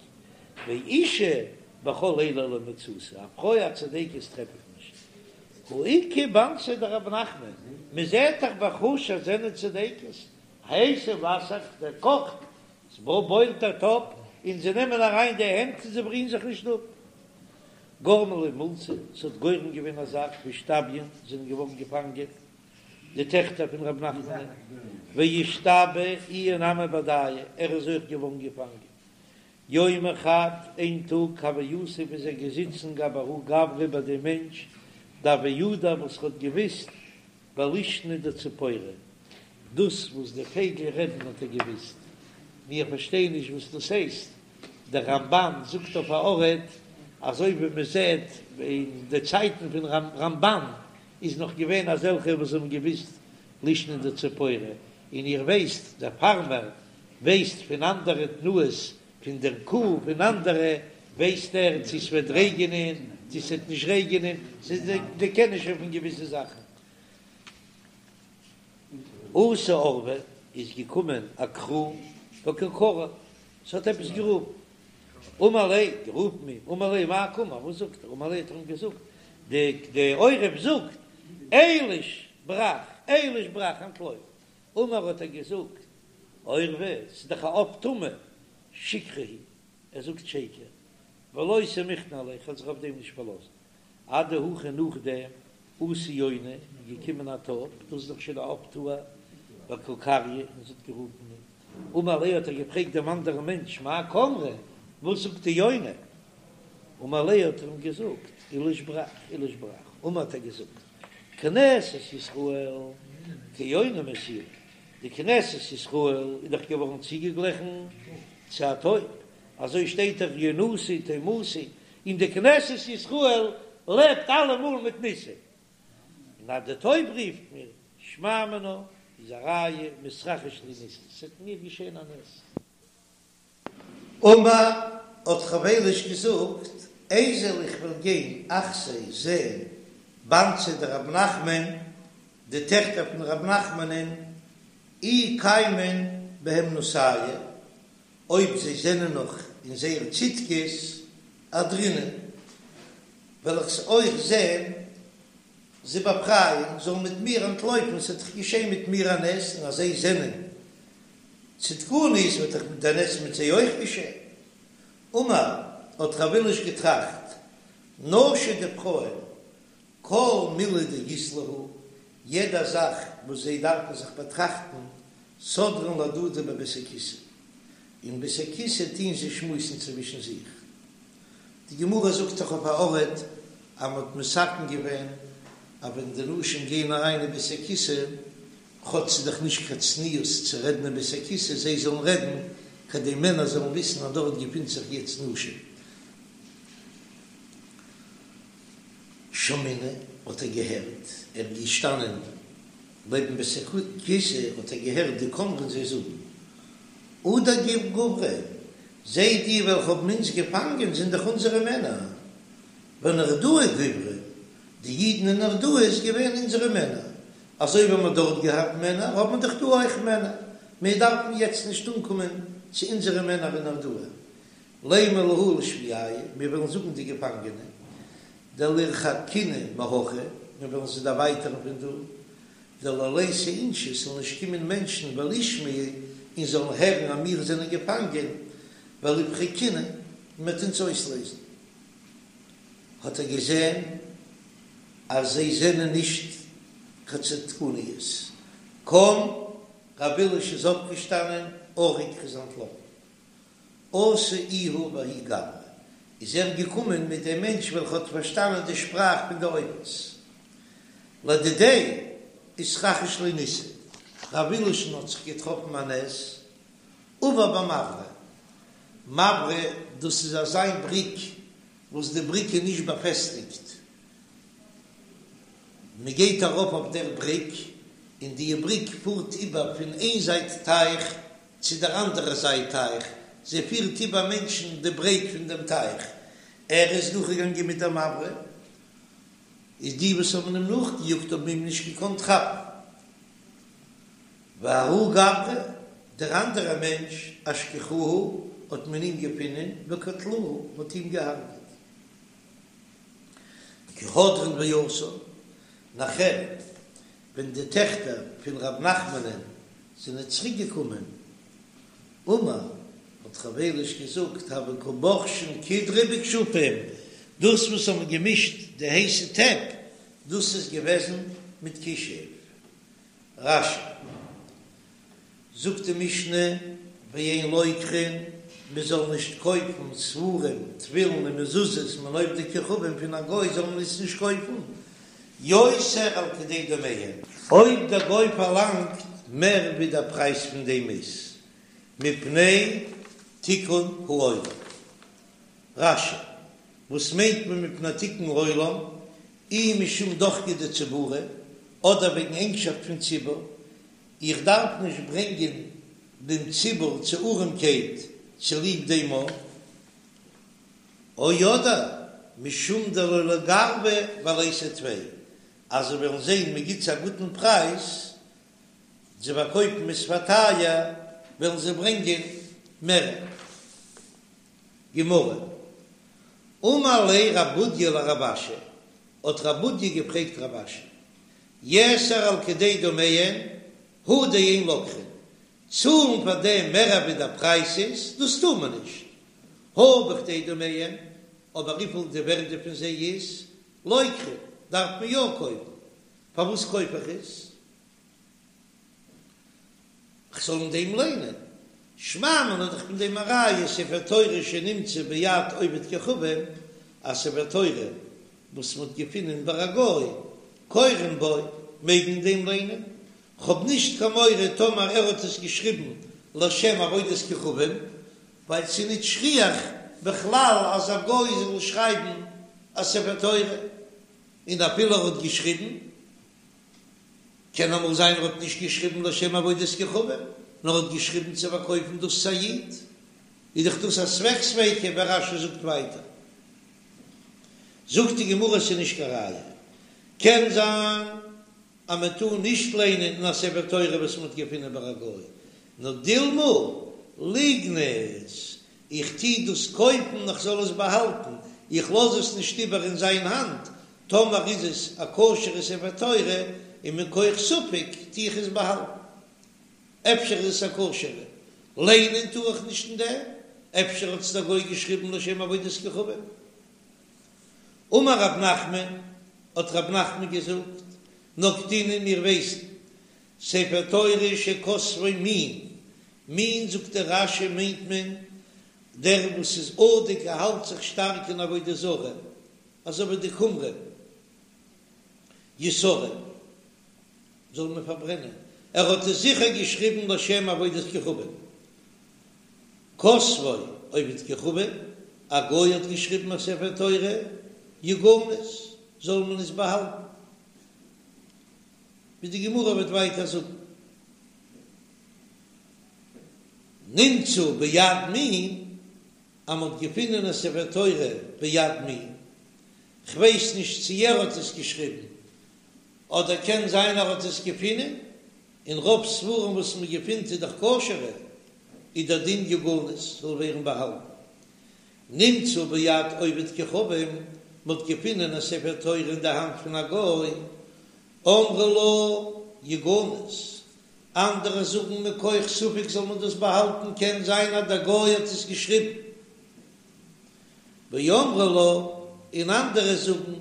Speaker 1: ואשה בכל אלה לא מצאתי, א פרוי א צדיקת טרעף איך נישט, הא איכא בנתיה דרב נחמן, מען זעט דאך בחוש אז זענען צדיקות, הייסע וואסער דער קאכט, ס'בוילט דער טאפ, און זיי נעמען אריין די הענט און זיי בריען זיך נישט אפ. גרמא להו מילתא, ס'האט גורם געווען א זאך ואישתביין זענען געווארן געפאנגען די טעכטער פון רב נחמן, ואישתבאי איהו נמי בהדייהו, ער איז אויך געווארן געפאנגען. יומא חד, איין טאג, הוה יתיב איז ער געזיצן גבי ההוא גברא ביי דעם מענטש דהוה ידע וואס האט געוויסט בלישנא דציפורי, דאס וואס די פייגל רעדן האט ער געוויסט, מיר פארשטייען נישט וואס דאס הייסט, דער רמב"ן זאגט אויף א ארט, אזוי ווי מען זעט אין די צייטן פון רמב"ן איז נאך געווען אזעלכע וואס האבן געוויסט לישנא דציפורי, און איר ווייסט דער פארמער ווייסט פון אנדערע תנועות פון דער קו פון אנדערע ווייסט ער צו ס'וועט רעגענען צו ס'וועט נישט רעגענען, ס'איז די קענען שוין פון געוויסע זאכן. אתא עורבא איז געקומען א קרא וקא קרי, ס'האט עפעס גערופן, אמר ליה, גערופן אים, אמר ליה מאי קאמר, וואס זאגט ער, אמר ליה האט ער אים געזאגט, די די עורב זאגט, עיליש ברח, עיליש ברח, אנטלויף, אמר האט ער געזאגט, עורבא, ס'איז דאך א עוף טמא, שיקרא הוא, ער זאגט שקר, ולא סמיכנא עליה, איך וועל זיך אויף דעם נישט פארלאזן. אדהכי נאכדעם אתא יונה, איז געקומען א טויב, דאס איז דאך שוין א עוף טהור, וקא קריא, און זי האט גערופן אים. אמר ליה האט ער געפרעגט דעם אנדערן מענטש, מאי קאמרה, וואס זאגט די יונה? אמר ליה האט ער אים געזאגט, עיליש ברח, עיליש ברח, אמר האט ער געזאגט, כנסת ישראל כיונה מתילה, די כנסת ישראל איז דאך געווארן צוגעגליכן צו א טויב, אזוי שטייט דאך יונתי תומתי, און די כנסת ישראל לעבט אלעמאל מיט ניסים, און אז די טויב רופט מיר, שמע מינה, איז א ראיה מתרחיש לי ניסא, ס'וועט מיר געשען א נס. אמר, האט רב עיליש געזאגט, איזיל איך וועל גיין אחזי זען. בנתיה דרב נחמן, די טעכטער פון רב נחמנ'ן, אי קיימן בהימנותייהו, אויב זיי זענען נאך אין זייער צדקות, אהדרינהו, וועל איך אויך זען זיי באפרייען, זאלן מיט מיר אנטלויפן, ס'וועט דאך געשען מיט מיר א נס, און אז זיי זענען צדקניות וועט דאך דער נס מיט זיי אויך געשען. אמר, האט רב עיליש געטראכט, נשי די פרויען, כל מילי דאית להו, יעדע זאך וואס זיי דארפן זיך באטראכטן, סדרן להדדי בבית הכסא, אין בית הכסא טוען זיי שמועסן צווישן זיך. די גמרא זאגט דאך אויף א ארט אז מען האט מתקן געווען אז ווען די נשים גייען אריין אין בית הכסא, כאטש ס'איז דאך נישט קיין צניעות צו רעדן אין בית הכסא, זיי זאלן רעדן כדי מענער זאלן וויסן אז דארט געפינט זיך יעצט נשים. שמעינהו האט ער געהערט, ער איז געשטאנען לעבן בית הכסא האט ער געהערט דקאמרן זיי זאגן, אדור גברי, זיי די וועלכע האבן אונז געפאנגען זענען דאך אונזערע מענער, ונהרדעי גברי, די אידן אין נהרדעא איז געווען אונזערע מענער, אזוי ווי מ'האט דארט געהאט מענער האט מען דאך דא אויך מענער, מיר דארפן יעצט נישט אנקומען צו אונזערע מענער אין נהרדעא, לימא להו לשבוייא, מיר וועלן זאגן די געפאנגענע, דלירחקינהו מהכא, מיר וועלן זיי דערווייטערן פון דא, דלא ליתו אינשי, ס'זאלן נישט קומען מענטשן ולישמעו און זאלן הערן אז מיר זענען געפאנגען, וליפרקינהו, און מ'וועט אונז אויסלעזן. האט ער געזען אז זיי זענען נישט קיין צדקניות, קם רב עיליש איז אויפגעשטאנען, ערק איז אנטלאפן. אתא איהו וההוא גברא, איז ער געקומען מיט דעם מענטש וועלכע האט פארשטאנען די שפראך פון די עופות. לדידיה אתרחיש ליה ניסא, רב עיליש'ן האט זיך געטראפן א נס, עבר במברא, מברא דאס איז אזיין בריק וואס די בריק איז נישט באפעסטיגט, מען גייט ארויף אויף דער בריק און די בריק פארט איבער פון איין זייט טייך צו דער אנדערער זייט טייך, זי פירט איבער מענטשן די ברייט פון דעם טייך, ער איז נאכגעגאנגען מיט דער מברא, איז די וואס האבן אים נאכגעיאגט האבן אים נישט געקאנט כאפן. וההוא גברא, דער אנדערער מענטש, אשכחוהו, האט מען אים געפונען, וקטלוהו, מען האט אים געהארגעט. כי הדרן ואתן, נאכער ווען די טעכטער פון רב נחמנ'ן זענען צוריק געקומען, אמר, האט רב עיליש געזאגט, הוו קא בחשין קדרא בכשפים, דאס וואס האבן געמישט די הייסע טעפ, דאס איז געוועזן מיט כישוף. רש"י, זאגט די משנה, ואין לוקחין, מען זאל נישט קויפן ספרים, תפילין און מזוזות מן העובדי כוכבים פון א גוי זאל מען עס נישט קויפן, יותר על כדי דמיהן. אויב דער גוי פארלאנגט מער ווי דער פרייז פון דעם איז מפני תיקון העולם. רש"י, וואס מיינט מען מפני תיקון העולם? אי משום דוחקא דציבורא, אדער וועגן ענגשאפט פון ציבור, איך דארף נישט ברענגען דעם ציבור צו ארעמקייט צוליב דעם א, או אדער משום דלא ליגרבו וליתו טפי, אז זיי וועלן זען מען גיט זיי א גוטן פרייז, זיי פארקויפן עס פאר טייער, וועלן זיי ברענגען מער. גמרא, אמר ליה רב בודיא לרב אשי, האט רב בודיא געפרעגט רב אשי, יתר על כדי דמיהן הוא דאין לוקחין, צאלן פאר דעם מער ווי דער פרייז איז, דאס טאר מען נישט, הא בכדי דמיהן, אבער וויפיל די ווערדע פון זיי איז, לוקחין, דארף מען יא קויפן, פארוואס קויף איך עס? כ'זאל אין דעם ליינען? שמע מינה האב איך פון דעם א ראיה, ספר תורה שנמצא ביד עובד כוכבים, א ספר תורה וואס מ'האט געפונען ביי א גוי, קורין בו, מעג מען אין דעם ליינען, כ'האב נישט קיין מורא טאמער ער האט עס געשריבן לשם עבודת כוכבים, ווייל ס'איז נישט שכיח בכלל אז א גוי זאל שרייבן א ספר תורה, און אפילו ער האט געשריבן, קען אמאל זיין ער האט נישט געשריבן לשם עבודת כוכבים, נאר האט געשריבן צו פארקויפן דאס צו א איד, איז דאך דאס א ספק ספיקא ווי רש"י זאגט ווייטער. זאגט די גמרא ס'איז נישט קיין ראיה. קען זיין אז מען טאר נישט ליינען אין א ספר תורה וואס מען האט געפונען ביי א גוי, נאר דילמא ליגניז, איך טו דאס קויפן איך זאל עס באהאלטן, איך לאז עס נישט איבער אין זיין האנט, טאמער איז עס א כשר'ע ספר תורה און מכח ספק טו איך עס באהאלטן, אפשר איז עס א כשר'ע, ליינען טאר איך נישט אין דעם, אפשר האט עס דער גוי געשריבן לשם עבודת כוכבים. אמר רב נחמן, האט רב נחמן געזאגט, נקטינן מיר ווייסן, ספר תורה שכתבו מין, מין זאגט דער רש"י מיינט מען דער וואס איז אדוק ער האלט זיך שטארק אין עבודה זרה, אזוי ווי די כומרים, ישרף, זאל מען פארברענען, ער האט עס זיכער געשריבן לשם עבודת כוכבים. כתבו עובד כוכבים, א גוי האט געשריבן א ספר תורה, יגנז, זאל מען עס באהאלטן, ווי די גמרא וועט ווייטער זאגן. נמצא ביד מין, אז מען האט געפונען א ספר תורה ביד מין, כ'ווייס נישט צו ער האט עס געשריבן, אדער קען זיין ער האט עס געפונען, און רוב ספרים וואס מען געפינט איז דאך כשר'ע, איז דער דין יגנז זאל ווערן באהאלטן. נמצא ביד עובד כוכבים, מען האט געפונען א ספר תורה אין די האנט פון א גוי, אמרי לה יגנז, אנדערע זאגן מכח ספק זאל מען דאס באהאלטן, קען זיין אז דער גוי האט עס געשריבן, ואמרי לה, און אנדערע זאגן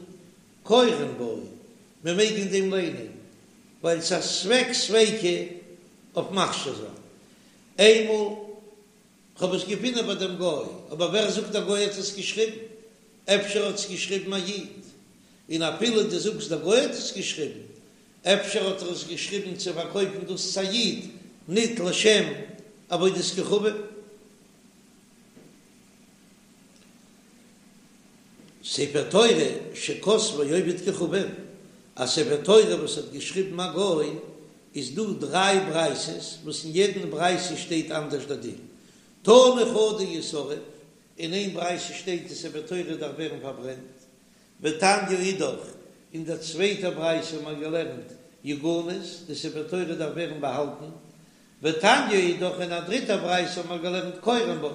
Speaker 1: קורין בו, מען מעג אין דעם ליינען, ווייל ס'איז א ספק ספיקא אויף מכשיר זיין. איינמאל כ'האב עס געפונען ביי דעם גוי, אבער ווער זאגט דער גוי האט עס געשריבן? אפשר האט עס געשריבן א איד. און אפילו דו זאגסט דער גוי האט עס געשריבן, אפשר האט ער עס געשריבן צו פארקויפן דאס צו א איד, ניט לשם עבודת כוכבים. ספר תורה שכתבו עובד כוכבים, א ספר תורה וואס האט געשריבן א גוי, איז דא דריי ברייתות וואס אין יעדן ברייתא שטייט אנדערש דער דין. תנא חדא ישרף, אין איין ברייתא שטייט די ספר תורה דארף ווערן פארברענט, ותניא אידך, אין דער צווייטער ברייתא האט מען געלערנט יגנז, די ספר תורה דארף ווערן באהאלטן, ותניא אידך, אין א דריטער ברייתא האט מען געלערנט קורין בו,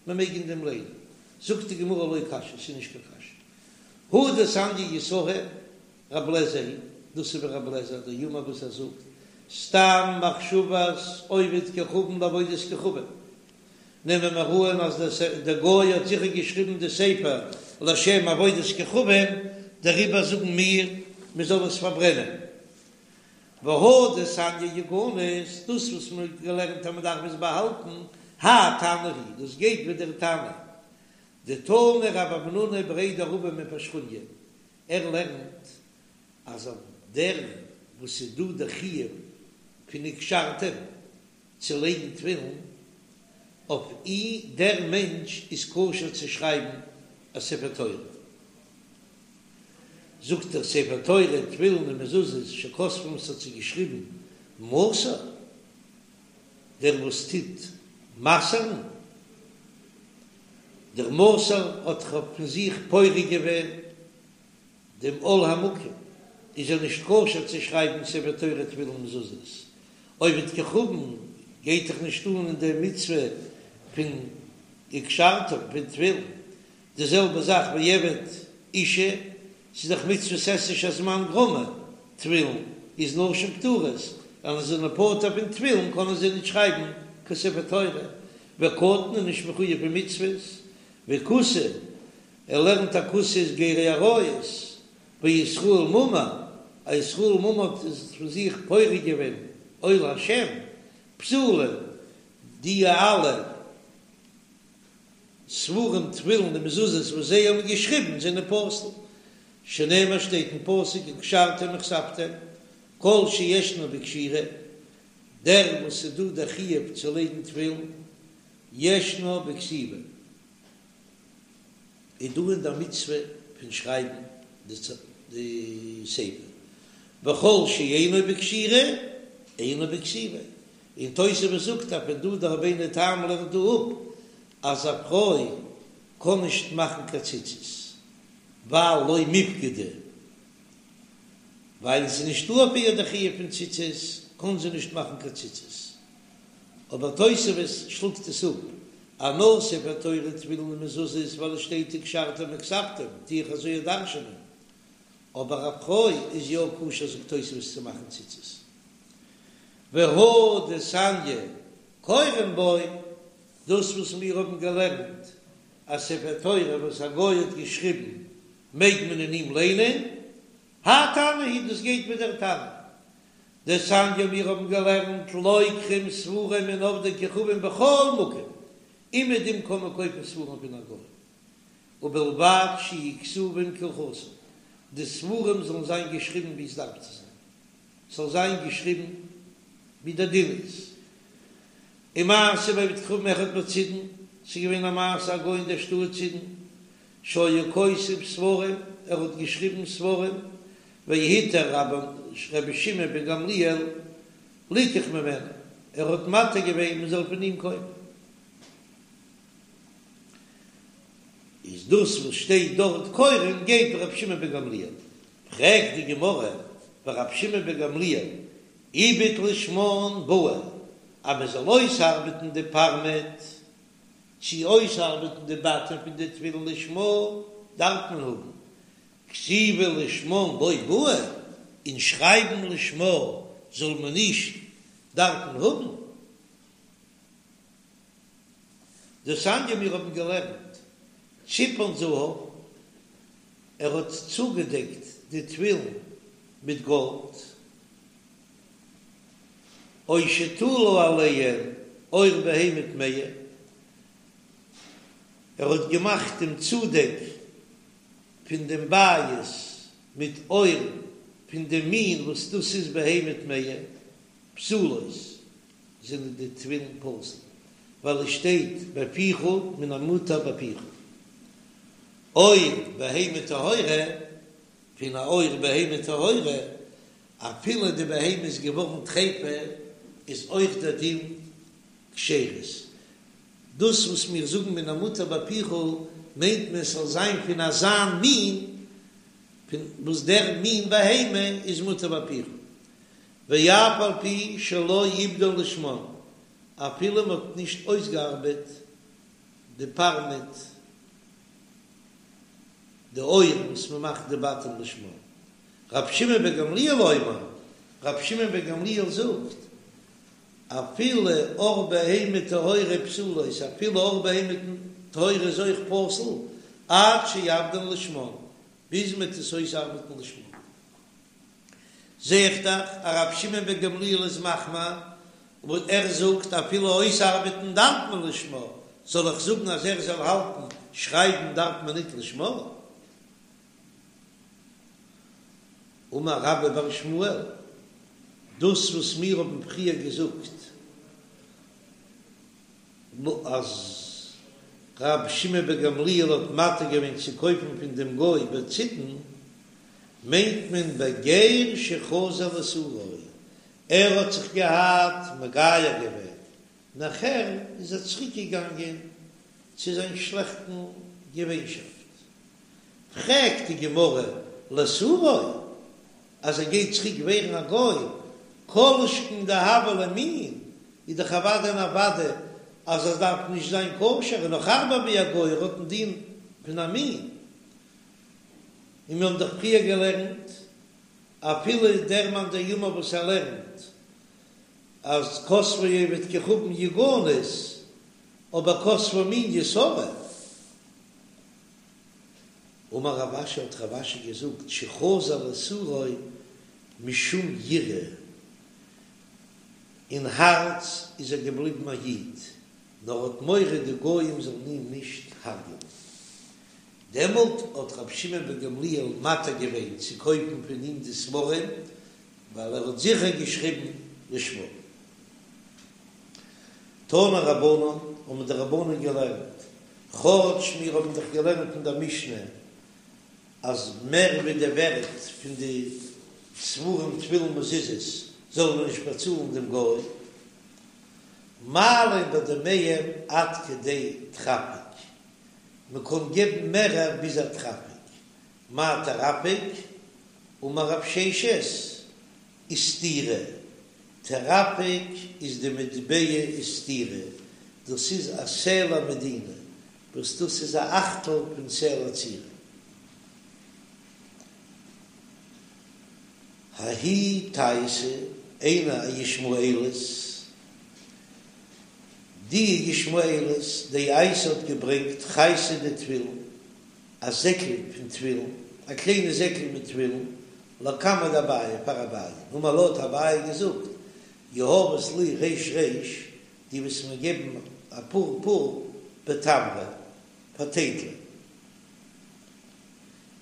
Speaker 1: מען מעג אין דעם ליינען. זאגט די גמרא לא קשיא, ס'איז נישט קיין קשיא. הא דתניא ישרף, רב לעזער היא, דאס איז ווי רב לעזער דאמר וואס ער זאגט, סתם מחשבת עובד כוכבים לעבודת כוכבים. נעמען מיר אן אז דער גוי האט זיכער געשריבן די ספר לשם עבודת כוכבים, דעריבער זאגן מיר מען זאל עס פארברענען. והא דתניא יגנז, דאס וואס מען האט געלערנט אז מען דארף עס באהאלטן, האי תנא היא, דאס גייט ווי דער תנא דתני רב המנונא בריה דרבא מפשרוניא, ער לערנט אז אויף דער וואס איז דא דער חיוב פון וקשרתם צו לייגן תפילין, אויף אי דער מענטש איז כשר צו שרייבן א ספר תורה. זאגט ער ספר תורה תפילין און מזוזות שכתבן וואס האט זיי געשריבן מסור דער וואס טוט מסר'ן דער מסור האט פון זיך פורק געווען דעם עול המקום איז ער נישט כשר צו שרייבן ספר תורה תפילין מזוזות עובד כוכבים גייט דאך נישט אן אין די מצוה פון וקשרתם פון תפילין די זעלבע זאך ועבד אשה, ס'איז דאך מצוות עשה שהזמן גרמא, תפילין איז נשים פטורות, אז זיי זענען פטור פון תפילין קענען זיי נישט שרייבן קיין ספר תורה, וקטן איז נישט מחויב אין מצוות, וכותי, ער לערנט א כותי איז גרי אריות, וישראל מומר, א ישראל מומר האט פון זיך פורק געווען עול השם, פסולין, די אלע. ספרים תפילין און מזוזות וואס זיי האבן געשריבן זענען פסול, שנאמר שטייט אין פסוק וקשרתם וכתבתם, כל שישנו בקשירה, דער וואס איז דא דער חיוב צו לייגן תפילין, ישנו בכתיבה, איז דא אין דער מצוה פון שרייבן די ספר, וכל שאינו בקשירה אינו בכתיבה, און תוספות זאגט אז פון דא דער רבינו תם לערנט דא אפ אז א פרוי קען נישט מאכן קיין ציצית ווייל לא מיפקדה. ווייל עס איז נישטא אויף איר די חיוב פון ציצית, קען זי נישט מאכן קיין ציצית. אבער תוספות שלאגט עס אפ, אז נאר ספר תורה תפילין און מזוזות ווייל עס שטייט וקשרתם וכתבתם, טו איך אזוי דרש'נען. אבער א פרוי איז יא כשר זאגט תוספות צו מאכן ציצית. והא דתניא קורין בו, דאס וואס מיר האבן געלערנט א ספר תורה וואס א גוי האט געשריבן מעג מען אין אים ליינען, האי תנא היא דאס גייט מיט דער תנא דתניא מיר האבן געלערנט לוקחים ספרים מן עובדי כוכבים בכל מקום, אומעדום קען מען קויפן ספרים פון א גוי, ובלבד שיהיו כתובים כהלכתן, די ספרים זאלן זיין געשריבן ווי עס דארף צו זיין, ס'זאל זיין געשריבן ווי דער דין איז. ומעשה בעובד כוכבים אחד בצידון, ס'איז געווען א מעשה א גוי אין דער שטאט צידון, שהיה כותב ספרים, ער האט געשריבן ספרים, והתיר רבי שמעון בן גמליאל ליקח ממנו, ער האט מתיר געווען מען זאל פון אים קויפן. איז דאס וואס שטייט דארט קורין גייט ווי רבי שמעון בן גמליאל? פרעגט די גמרא, ורבי שמעון בן גמליאל עיבוד לשמן בעי, אז מען זאל אויסארבעטן די פארמעט, צו אויסארבעטן די בתים פון די תפילין לשמה דארף מען האבן כתיבה לשמן לא בעי, און שרייבן לשמה זאל מען נישט דארפן האבן. דתניא מיר האבן געלערנט ציפן זהב, ער האט צוגעדעקט די תפילין מיט גאלד, או שתלה עליהן עור בהמה טמאה, ער האט געמאכט דעם צודעק פון דעם בית מיט עור פון דעם מין וואס דאס איז בהמה טמאה, פסולות זענען די תפילין פסול, ווייל עס שטייט בפיך מן המותר בפיך. עור בהמה טהורה, פון א עור בהמה טהורה, אפילו די בהמה איז געווארן טריפה, איז אויך דער דין כשרות. דאס וואס מיר זאגן מן המותר בפיך, מיינט מען עס זאל זיין פון אזא מין פון וואס דער מין בהמה איז מותר בפיך. ואף על פי שלא עיבדן לשמן, אפילו מען האט נישט אויסגעארבעט די פארמעט, די עור וואס מען מאכט די בתים לשמה. רבי שמעון בן גמליאל אומר, רבי שמעון בן גמליאל זאגט, אפילו עור בהמה טהורה פסולות, אפילו עור בהמה טהורה איז אויך פסול, עד שיעבדן לשמן, ביז מען טוט עס אויסארבעטן לשמה. זע איך דאך אז רבי שמעון בן גמליאל איז מחמיר, און ער זאגט אפילו אויסארבעטן דארף מען לשמה, זאל איך זאגן אז ער זאל האלטן שרייבן דארף מען ניט לשמה? אמר רבה בר שמואל, דאס וואס מיר האבן פריער געזאגט אז רבי שמעון בן גמליאל האט מתיר געווען צו קויפן פון דעם גוי בצידון, מיינט מען בגר שחזר לסורו, ער האט זיך געהאט מגייר געווען, נאכער איז ער צוריק געגאנגען צו זיין שלעכטן געוואוינשאפט. פרעגט די גמרא, לסורו, אז ער גייט צוריק ווערן א גוי, כל שכן דהוה ליה מין, איז דאך אוודאי און אוודאי אז עס דארף נישט זיין כשר, און נאך הארבער ווי א גוי, ער האט דעם דין פון א מין. און מיר האבן דאך פריער געלערנט, אפילו דער מאן דאמר וואס ער לערנט אז כתבו עובד כוכבים יגנז, אבער כתבו מין ישרף. אמר רב אשי האט רב אשי געזאגט שחזר לסורו משום יראה, אין הארץ איז ער געבליבן א איד, נאר האט מורא די גויים זאלן אים נישט הרג'ענען. דעמאלט האט רבי שמעון בן גמליאל מתיר געווען צו קויפן פון אים די ספרים, ווייל ער האט זיכער געשריבן לשמה. תנו רבנן, האבן די רבנן געלערנט, כאטש מיר האבן דאך געלערנט אין דער משנה אז מער ווי די ווערט פון די ספרים תפילין מזוזות זאל מען נישט באצאלן דעם גוי, מעלין בדמיהם עד כדי טרפעיק, מען קען געבן מערער ביז א טרפעיק, מאי טרפעיק? אמר רב ששת, איסתירא, תרפק איז די מטבע איסתירא, דאס איז א סלע מדינה, וואס דאס איז א אכטל פון סלע צורי. ההיא טייעתא, איינע א ישמעאלית, די ישמעאלית דאייתא האט געברענגט חייתא דתפילין, א זעקל פון תפילין, א קליינע זעקל מיט תפילין, לקמיה דאביי, פאר אביי, אמר לה האט אביי געזאגט, יהבת לי ריש ריש, דו וועסט מיר געבן א פאר פאר בתמרי, פאר טייטלען.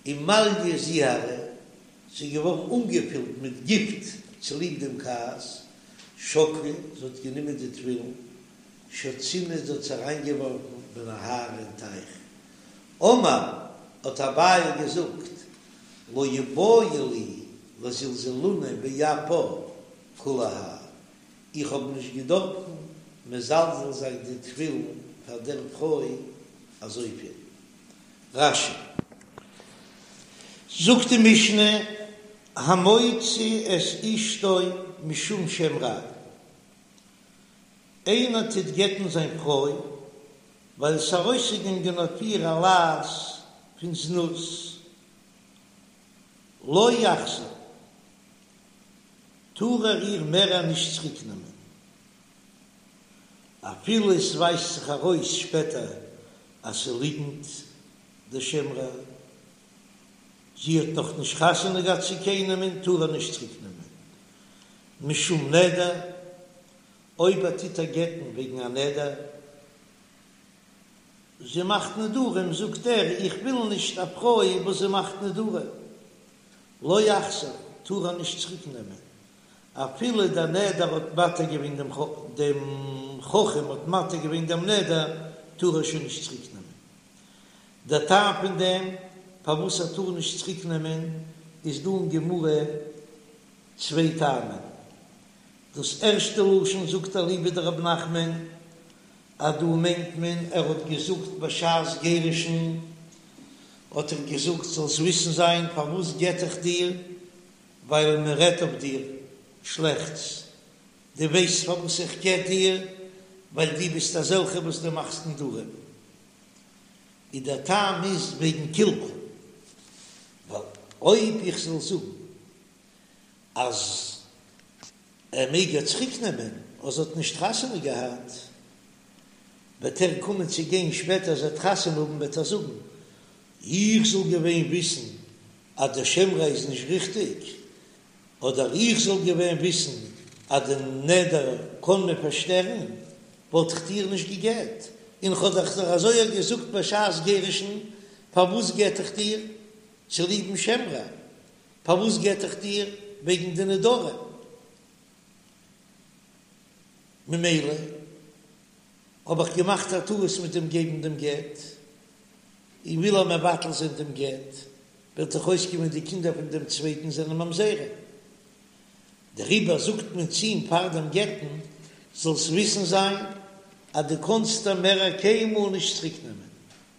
Speaker 1: ומליא זיהרא, ס'איז געווארן אנגעפילט מיט גיפט צוליב דעם כעס, שקלה, זי האט גענומען די תפילין, שצינהו, זי האט עס אריינגעווארפן בנהרא אין טייך. אמר, האט אביי געזאגט, לא איבעי לי לזלזולינהו באפה כולי האי, איך האב נישט געדארפן מזלזל זיין די תפילין פאר דער פרוי אזויפיל. רש"י. זאגט די משנה, המוציא את אשתו משום שם רע, איינער טוט גט'ן זיין פרוי ווייל עס איז ארויסגעגאנגען אויף איר א לעז פון זנות, לא יחזיר, טאר ער איר מער נישט צוריק נעמען, אפילו עס ווייזט זיך ארויס שפעטער אז ס'ליגנט די שם רע, זי האט נאך נישט חתונה געהאט צו קיינעם און טאר ער נישט צוריק נעמען משום נדר, אויב ער טוט איר גט'ן וועגן א נדר, זי מאכט נדרים זאגט ער איך וויל נישט א פרוי וואס זי מאכט נדרים, לא יחזיר, טאר ער נישט צוריק נעמען, אפילו דער נדר האט מתיר געווען דעם דעם חכם האט מתיר געווען דעם נדר, טאר ער שוין נישט צוריק נעמען. דער טעם פון דעם פארוואס ער טאר נישט צוריק נעמען איז דא אין גמרא צוויי טעמים. דאס ערשטע לשון זאגט אליבא דרב נחמן אז דא מיינט מען ער האט געזאגט בשעת גירושין האט ער געזאגט זאלסט וויסן זיין פארוואס גט איך דיר ווייל מען רעדט אויף דיר שלעכטס, דו ווייסט פארוואס איך גט דיר? ווייל דו ביסט אזעלכע וואס דו מאכסט נדרים. און דער טעם איז וועגן קלקול, ווייל אויב איך זאל זאגן אז ער מעג איר צוריק נעמען אז זי האט נישט חתונה געהאט, וועט ער קומען צו גיין שפעטער זי וועט חתונה האבן וועט ער זאגן איך זאל געווען וויסן אז דער שם רע איז נישט ריכטיג, אדער איך זאל געווען וויסן אז די נדר קען מען פארשטערן, וואלט איך דיר נישט געגעט, און כ'האב דאך דיר אזוי געזאגט בשעת גירושין, פארוואס גט איך דיר? צוליבן שם רע, פארוואס גט איך דיר? וועגן די נדרים. ממילא האב איך געמאכט א טעות מיט דעם געבן דעם גט, איך וויל איר מבטל זיין דעם גט, וועט דאך אויסקומען די קינדער פון דעם צווייטן זענען ממזרים, דעריבער זאגט מען צו אים פאר דעם גט'ן, זאלסט וויסן זיין אז דו קאנסט איר מער קיינמאל נישט צוריק נעמען,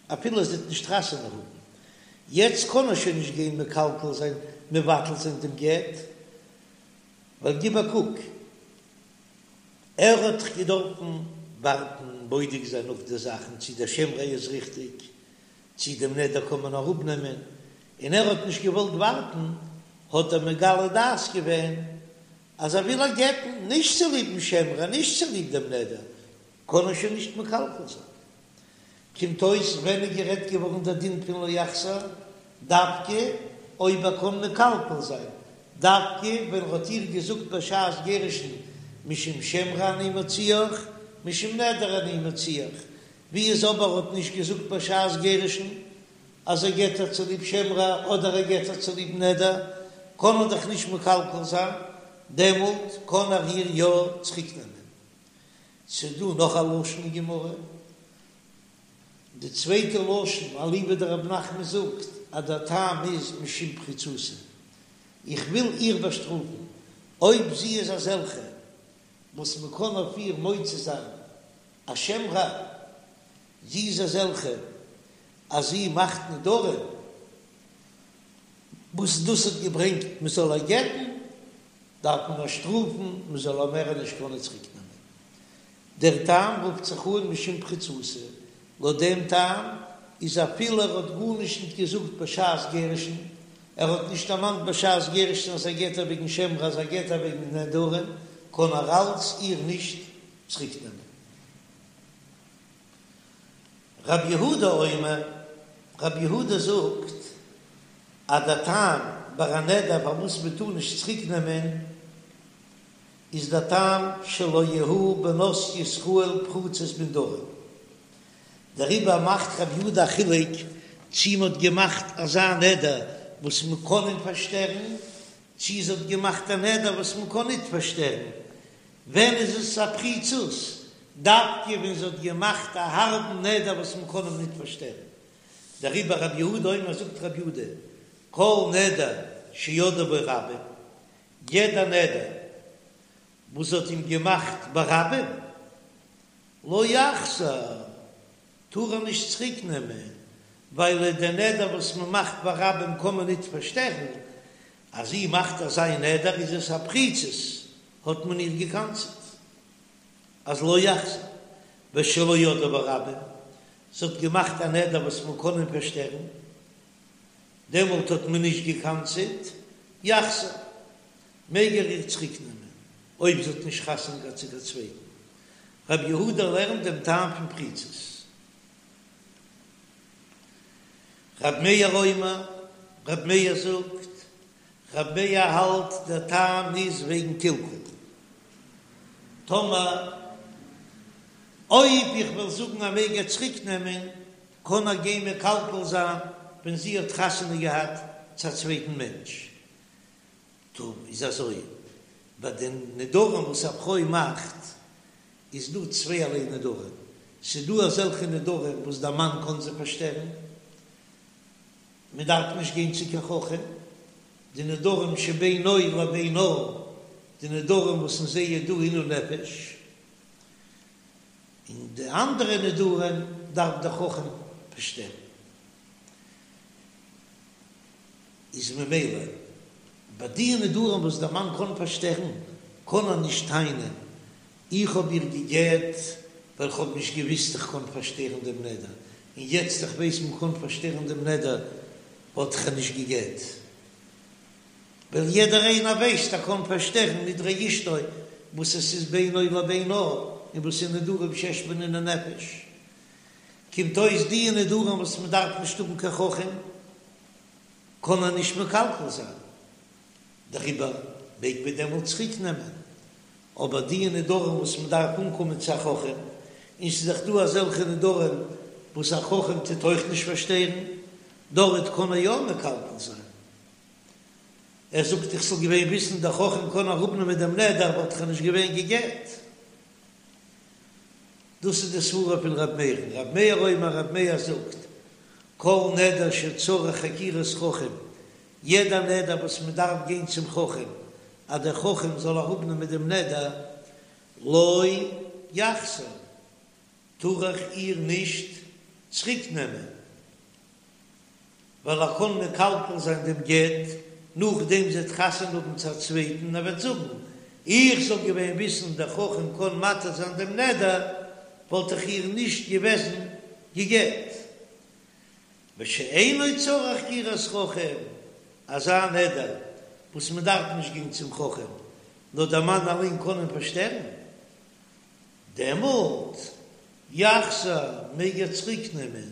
Speaker 1: אפילו זי וועט נישט חתונה האבן, יעצט קען ער שוין נישט גיין מקלקל זיין מבטל זיין דעם גט, ווייל גיב א קוק, ער האט דאך געדארפן ווארטן בודק זיין אויף די זאכן צי דער שם רע איז ריכטיג, צי דעם נדר קען מען אראפנעמען, און ער האט נישט געוואלט ווארטן, האט ער מגלה דעת געווען אז ער וויל איר גט'ן, נישט צוליב'ן שם רע, נישט צוליב דעם נדר, קען ער שוין נישט מקלקל זיין. קומט אויס ווען איז גערעדט געווארן דער דין פון לא יחזיר, דווקא אויב ער קען מקלקל זיין, דווקא ווען ער האט איר געזאגט בשעת גירושין משום שם רע אני מוציאך, משום נדר אני מוציאך, ווי איז אבער ער האט נישט געזאגט בשעת גירושין אז ער גט איר צוליב שם רע אדער ער גט איר צוליב נדר, קען ער דאך נישט מקלקל זיין, דעמאלט קען ער איר יא צוריקנעמען. ס'איז דא נאך א לשון אין גמרא, די צווייטע לשון אליבא דרב נחמן זאגט אז דער טעם איז משום פריצותא, איך וויל איר באשטראפן אויב זי איז אזעלכע וואס מ'קען אויף איר מוציא זיין א שם רע, זי איז אזעלכע אז זי מאכט נדרים. וואס דאס האט געברענגט מען זאל איר גט'ן, דארף מען איר שטראפן מען זאל איר מער נישט קענען צוריק נעמען. דער טעם רופט זיך אן משום פריצותא, לויט דעם טעם איז אפילו ער האט גארנישט ניט געזאגט בשעת גירושין, ער האט נישט דערמאנט בשעת גירושין אז ער גט איר וועגן שם רע אז ער גט איר וועגן נדרים, קען ער אלץ איר נישט צוריק נעמען. רב יהודה אומר, רב יהודה זאגט אז דער טעם ביי א נדר פארוואס מען טאר נישט צוריק נעמען איז דער טעם שלא יהו בנות ישראל פרוצות בנדרים, דעריבער מאכט רב יהודה א חילוק צי מען האט געמאכט אזא נדר וואס מען קען אים פארשטערן, צי זי האט געמאכט א נדר וואס מען קען ניט פארשטערן, ווען איז עס א פריצות? דווקא ווען זי האט געמאכט א הארבן נדר וואס מען קען אים ניט פארשטערן. דעריבער רב יהודה אומר זאגט רב יהודה, כל נדר שידעו בו רבים, יעדע נדר וואס זי האט אים געמאכט ברבים, לא יחזיר, טאר ער נישט צוריק נעמען, ווייל די נדר וואס מען מאכט ברבים קען מען ניט פארשטערן, אז זי מאכט אזא נדר איז עס א פריצות, האט מען איר געקנס'ט אז לא יחזיר, ושלא ידעו בו רבים, זי האט געמאכט א נדר וואס מען קען אים פארשטערן, דעמאלט האט מען נישט געקנס'ט, יחזיר, מעג ער איר צוריק נעמען, אויב זי האט נישט חתונה געהאט צו קיין צווייטן. רבי יהודה לערנט דעם טעם פון פריצות. רבי מאיר אומר, רבי מאיר זאגט, רבי מאיר האלט דער טעם איז וועגן קלקול. טאמער אויב איך וועל זאגן אז מעג ער צוריק נעמען, קען ער גיין מקלקל זיין ווען זי האט חתונה געהאט צו א צווייטן מענטש. טא איז אזוי, ביי די נדרים וואס א פרוי מאכט איז דא צווייערליי נדרים, ס'איז דא אזעלכע נדרים וואס דער מאן קען זיי פארשטערן, מען דארף נישט גיין צו קיין חכם, די נדרים שבינו לבינה, די נדרים וואס אין זיי איז דא עינוי נפש, און די אנדערע נדרים דארף דער חכם פארשטערן. איז ממילא ביי די נדרים וואס דער מאן קען פארשטערן, קען ער נישט טענה'ן איך האב איר גע'גט ווייל כ'האב נישט געוויסט איך קען פארשטערן דעם נדר, און יעצט איך ווייס מ'קען פארשטערן דעם נדר וואלט איך איר נישט גע'גט. ווייל יעדער איינער ווייסט ער קען פארשטערן נדרי אשתו וואס עס איז בינו לבינה און וואס איז נדרים שיש בהן עינוי נפש. קומט אויס די נדרים וואס מ'דארף נישט האבן קיין חכם קען ער נישט מקלקל זיין, דעריבער מעג מען דעמאלט צוריק נעמען, אבער די נדרים וואס מען דארף אנקומען צו א חכם, און ס'איז דאך דא אזעלכע נדרים וואס א חכם טוט אויך נישט פארשטערן, דארט קען ער יא מקלקל זיין. ער זאגט איך זאל געווען וויסן דער חכם קען אראפנעמען דעם נדר וואלט איך נישט געווען גע'גט. דאס איז די סברה פון ר' מאיר'ן, ר' מאיר אומר, ר' מאיר זאגט, כל נדר שצריך חקירת חכם, יעדע נדר וואס מען דארף גיין צום חכם אז דער חכם זאל אראפנעמען דעם נדר, לא יחזיר, טאר איך איר נישט צוריק נעמען, ווייל ער קען מקלקל זיין דעם גט נאכדעם זי וועט חתונה האבן צו א צווייטן, ער וועט זאגן, איך זאל געווען וויסן דער חכם קען מתיר זיין דעם נדר, וואלט איך איר נישט געוועזן גע'גט. ושאינו צריך חקירת חכם, אזא נדר וואס מען דארף נישט גיין צום חכם, נאר דער מאן אליין קען אים פארשטערן, דעמאלט יחזיר מעג ער צוריק נעמען,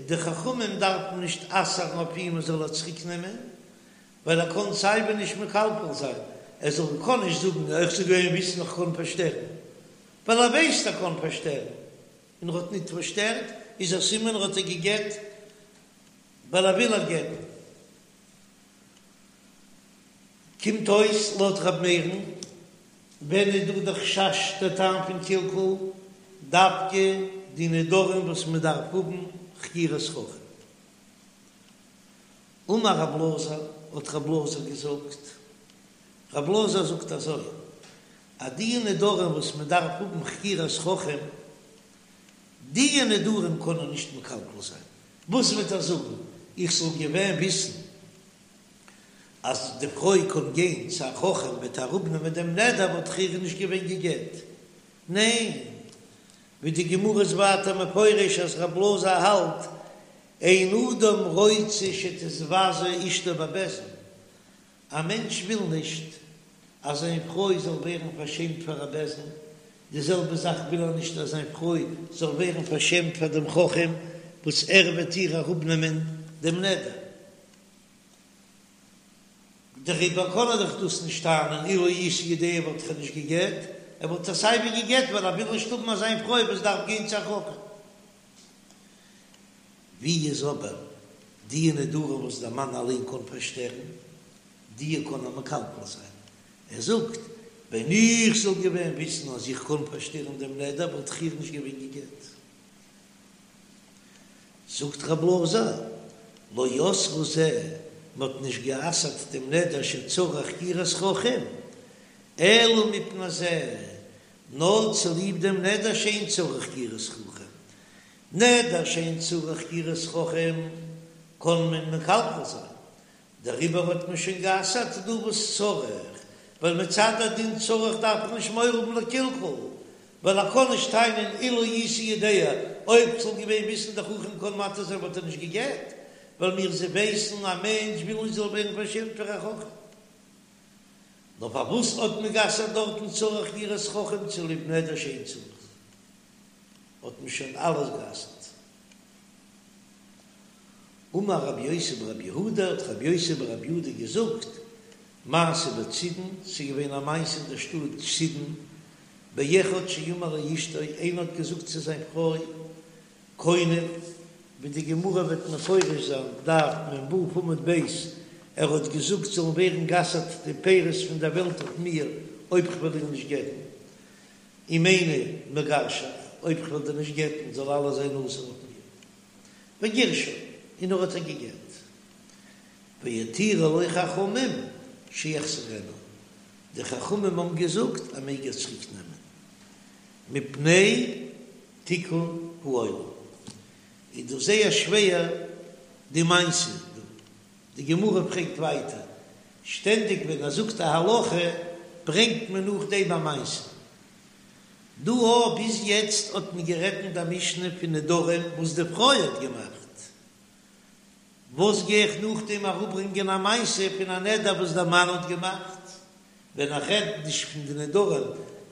Speaker 1: די חכמים דארפן נישט אסר'ן אויף אים ער זאל איר צוריק נעמען, ווייל ער קען סייווי נישט מקלקל זיין, ער זאל קען נישט זאגן איך זאל געווען וויסן איך קען פארשטערן, ווייל ער ווייסט ער קען פארשטערן, און ער האט ניט פארשטערט, איז א סימן ער האט איר גע'גט ווייל ער וויל איר גט'ן. קומט אויס לויט ר' מאיר'ן, ווען איז דא די חשש די טעם פון קלקול, דווקא די נדרים וואס מען דארף האבן חקירת חכם. אמר רב אלעזר, האט רב אלעזר געזאגט, רב אלעזר זאגט אזוי, אז די נדרים וואס מען דארף האבן חקירת חכם, די נדרים קען ער נישט מקלקל זיין, וואס וועט ער זאגן, איך זאל געווען וויסן. אז די פרוי קען גיין צו א חכם וועט אראפנעמען דעם נדר וואלט איך איר נישט געווען גע'גט. ניין, ווי די גמרא איז ווייטער מפרש אז רב אלעזר האלט אין אדם רוצה שתתבזה אשתו בבית דין, א מענטש וויל נישט אז זיין פרוי זאל ווערן פארשעמט פאר א בית דין, די זעלבע זאך וויל ער נישט אז זיין פרוי זאל ווערן פארשעמט פאר דעם חכם וואס ער וועט איר אראפנעמען דעם נדר. דעריבער קען ער דאך דאס נישט טענה'ן, אילו הייתי יודע וואלט איך איר נישט גע'גט, ער וואלט איר סיי ווי גע'גט ווייל ער וויל נישט האבן אז זיין פרוי וואס דארף גיין צו א חכם. ווי איז אבער די נדרים וואס דער מאן אליין קען פארשטערן, די קען ער מקלקל זיין, ער זאגט, ווען איך זאל געווען וויסן אז איך קען פארשטערן דעם נדר וואלט איך איר נישט געווען גע'גט. זאגט רב אלעזר, לא אסרו זה, מען האט נישט גע'אסר'ט דעם נדר שצריך חקירת חכם, אלא מפני זה, נאר צוליב דעם נדר שאין צריך חקירת חכם, נדר שאין צריך חקירת חכם קען מען מקלקל זיין, דעריבער האט מען שוין גע'אסר'ט דא וואס צריך, ווייל מצד הדין צריך דארף איך נישט מורא האבן לקלקול, ווייל ער קען נישט טענה'ן אילו הייתי יודע, אויב כ'זאל געווען וויסן דער חכם קען מתיר זיין וואלט ער נישט גע'גט, ווייל מיר זיי ווייסן א מענטש וויל נישט זאל ווערן פארשעמט פאר א חכם. נאר פארוואס האט מען גע'אסר'ט דארטן צריך חקירת חכם צוליב נדר שאין צריך האט מען שוין אלעס גע'אסר'ט. אמר רבי יוסי ברבי יהודה, האט רבי יוסי ברבי יהודה געזאגט, מעשה בצידון, ס'איז געווען א מעשה אין דער שטאט צידון, באחד שאמר לאשתו, איינער האט געזאגט צו זיין פרוי, קונם, ווי די גמרא וועט מפרש זיין, דף מ"ו עמוד ב', ער האט געזאגט זאלן ווערן גע'אסר'ט די פירות פון דער וועלט אויף מיר אויב כ'וועל איר נישט גט'ן, אם איני מגרשך, אויב כ'וועל דיר נישט גט'ן זאל אלעס זיין אסור אויף מיר. וגירשה, און ער האט איר גע'גט. והתירו לו חכמים שיחזירנה, די חכמים האבן געזאגט ער מעג איר צוריק נעמען, מפני תיקון העולם. איז דאך זייער שווער די מעשה דא. די גמרא פרעגט ווייטער, שטענדיג ווען ער זאגט א הלכה ברענגט מען נאכדעם א מעשה. דא א ביז יעצט האט מען גערעדט אין די משנה פון נדרים וואס די פרוי האט געמאכט, וואס גיי איך נאכדעם אראפברענגען א מעשה פון א נדר וואס דער מאן האט געמאכט? ווען איך רעד נישט פון די נדרים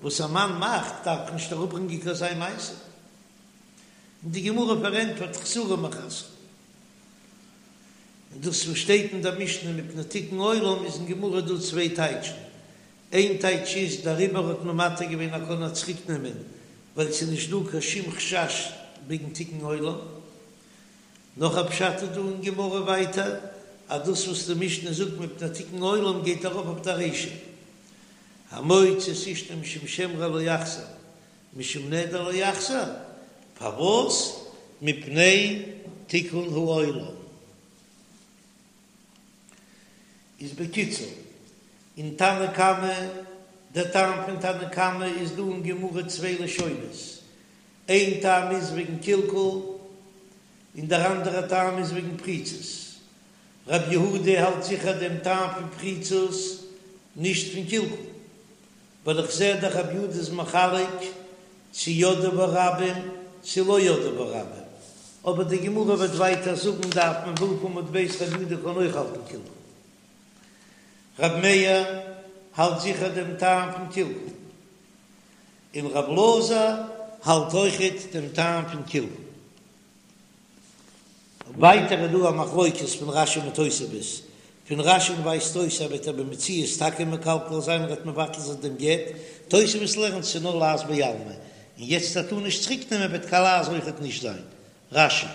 Speaker 1: וואס א מאן מאכט דארף איך נישט אראפברענגען קיין אזא מעשה. און די גמרא פארענטפערט חסורי מחסרא. און דאס וואס שטייט אין דער משנה מפני תיקון עולם איז אין גמרא דא צוויי טייטשן, איין טייטש איז דעריבער האט מען מתיר געווען ער קען איר צוריק נעמען ווייל ס'איז נישט דא קיין שום חשש וועגן תיקון עולם. נאך א פשט איז דא אין גמרא ווייטער אז דאס וואס די משנה זאגט מפני תיקון עולם גייט ארויף אויף די רישא המוציא את אשתו משום שם רע לא יחזיר משום נדר לא יחזיר, פארוואס? מפני תיקון העולם. איז בקיצור, אין תנא קמא, דער טעם פון תנא קמא איז דא אין גמרא צוויי לשונות, איין טעם איז וועגן קלקול, און דער אנדערער טעם איז וועגן פריצות. רבי יהודה האלט זיכער דעם טעם פון פריצות, נישט פון קלקול. ווייל איך זעה דאך רבי יהודה איז מחלק צו ידעו בה רבים צו לא ידעו בה רבים, אבער די גמרא וועט ווייטער זאגן דף מ"ו עמוד ב' רבי יהודה קען אויך האלטן קלקול. רבי מאיר האלט זיכער דעם טעם פון קלקול, און רבי אלעזר האלט אויכעט דעם טעם פון קלקול. ווייטער איז דא א מחלוקת פון רש"י מיט תוספות, פון רש"י'ן ווייזט אויס אז וועט ער במציאות טאקע מקלקל זיין ער וועט מבטל זיין דעם גט, תוספות לערנט ס'איז נאר לעז בעלמא, און יעצט ער טאר נישט צוריק נעמען וועט קיין לעז אויכעט נישט זיין. רש"י.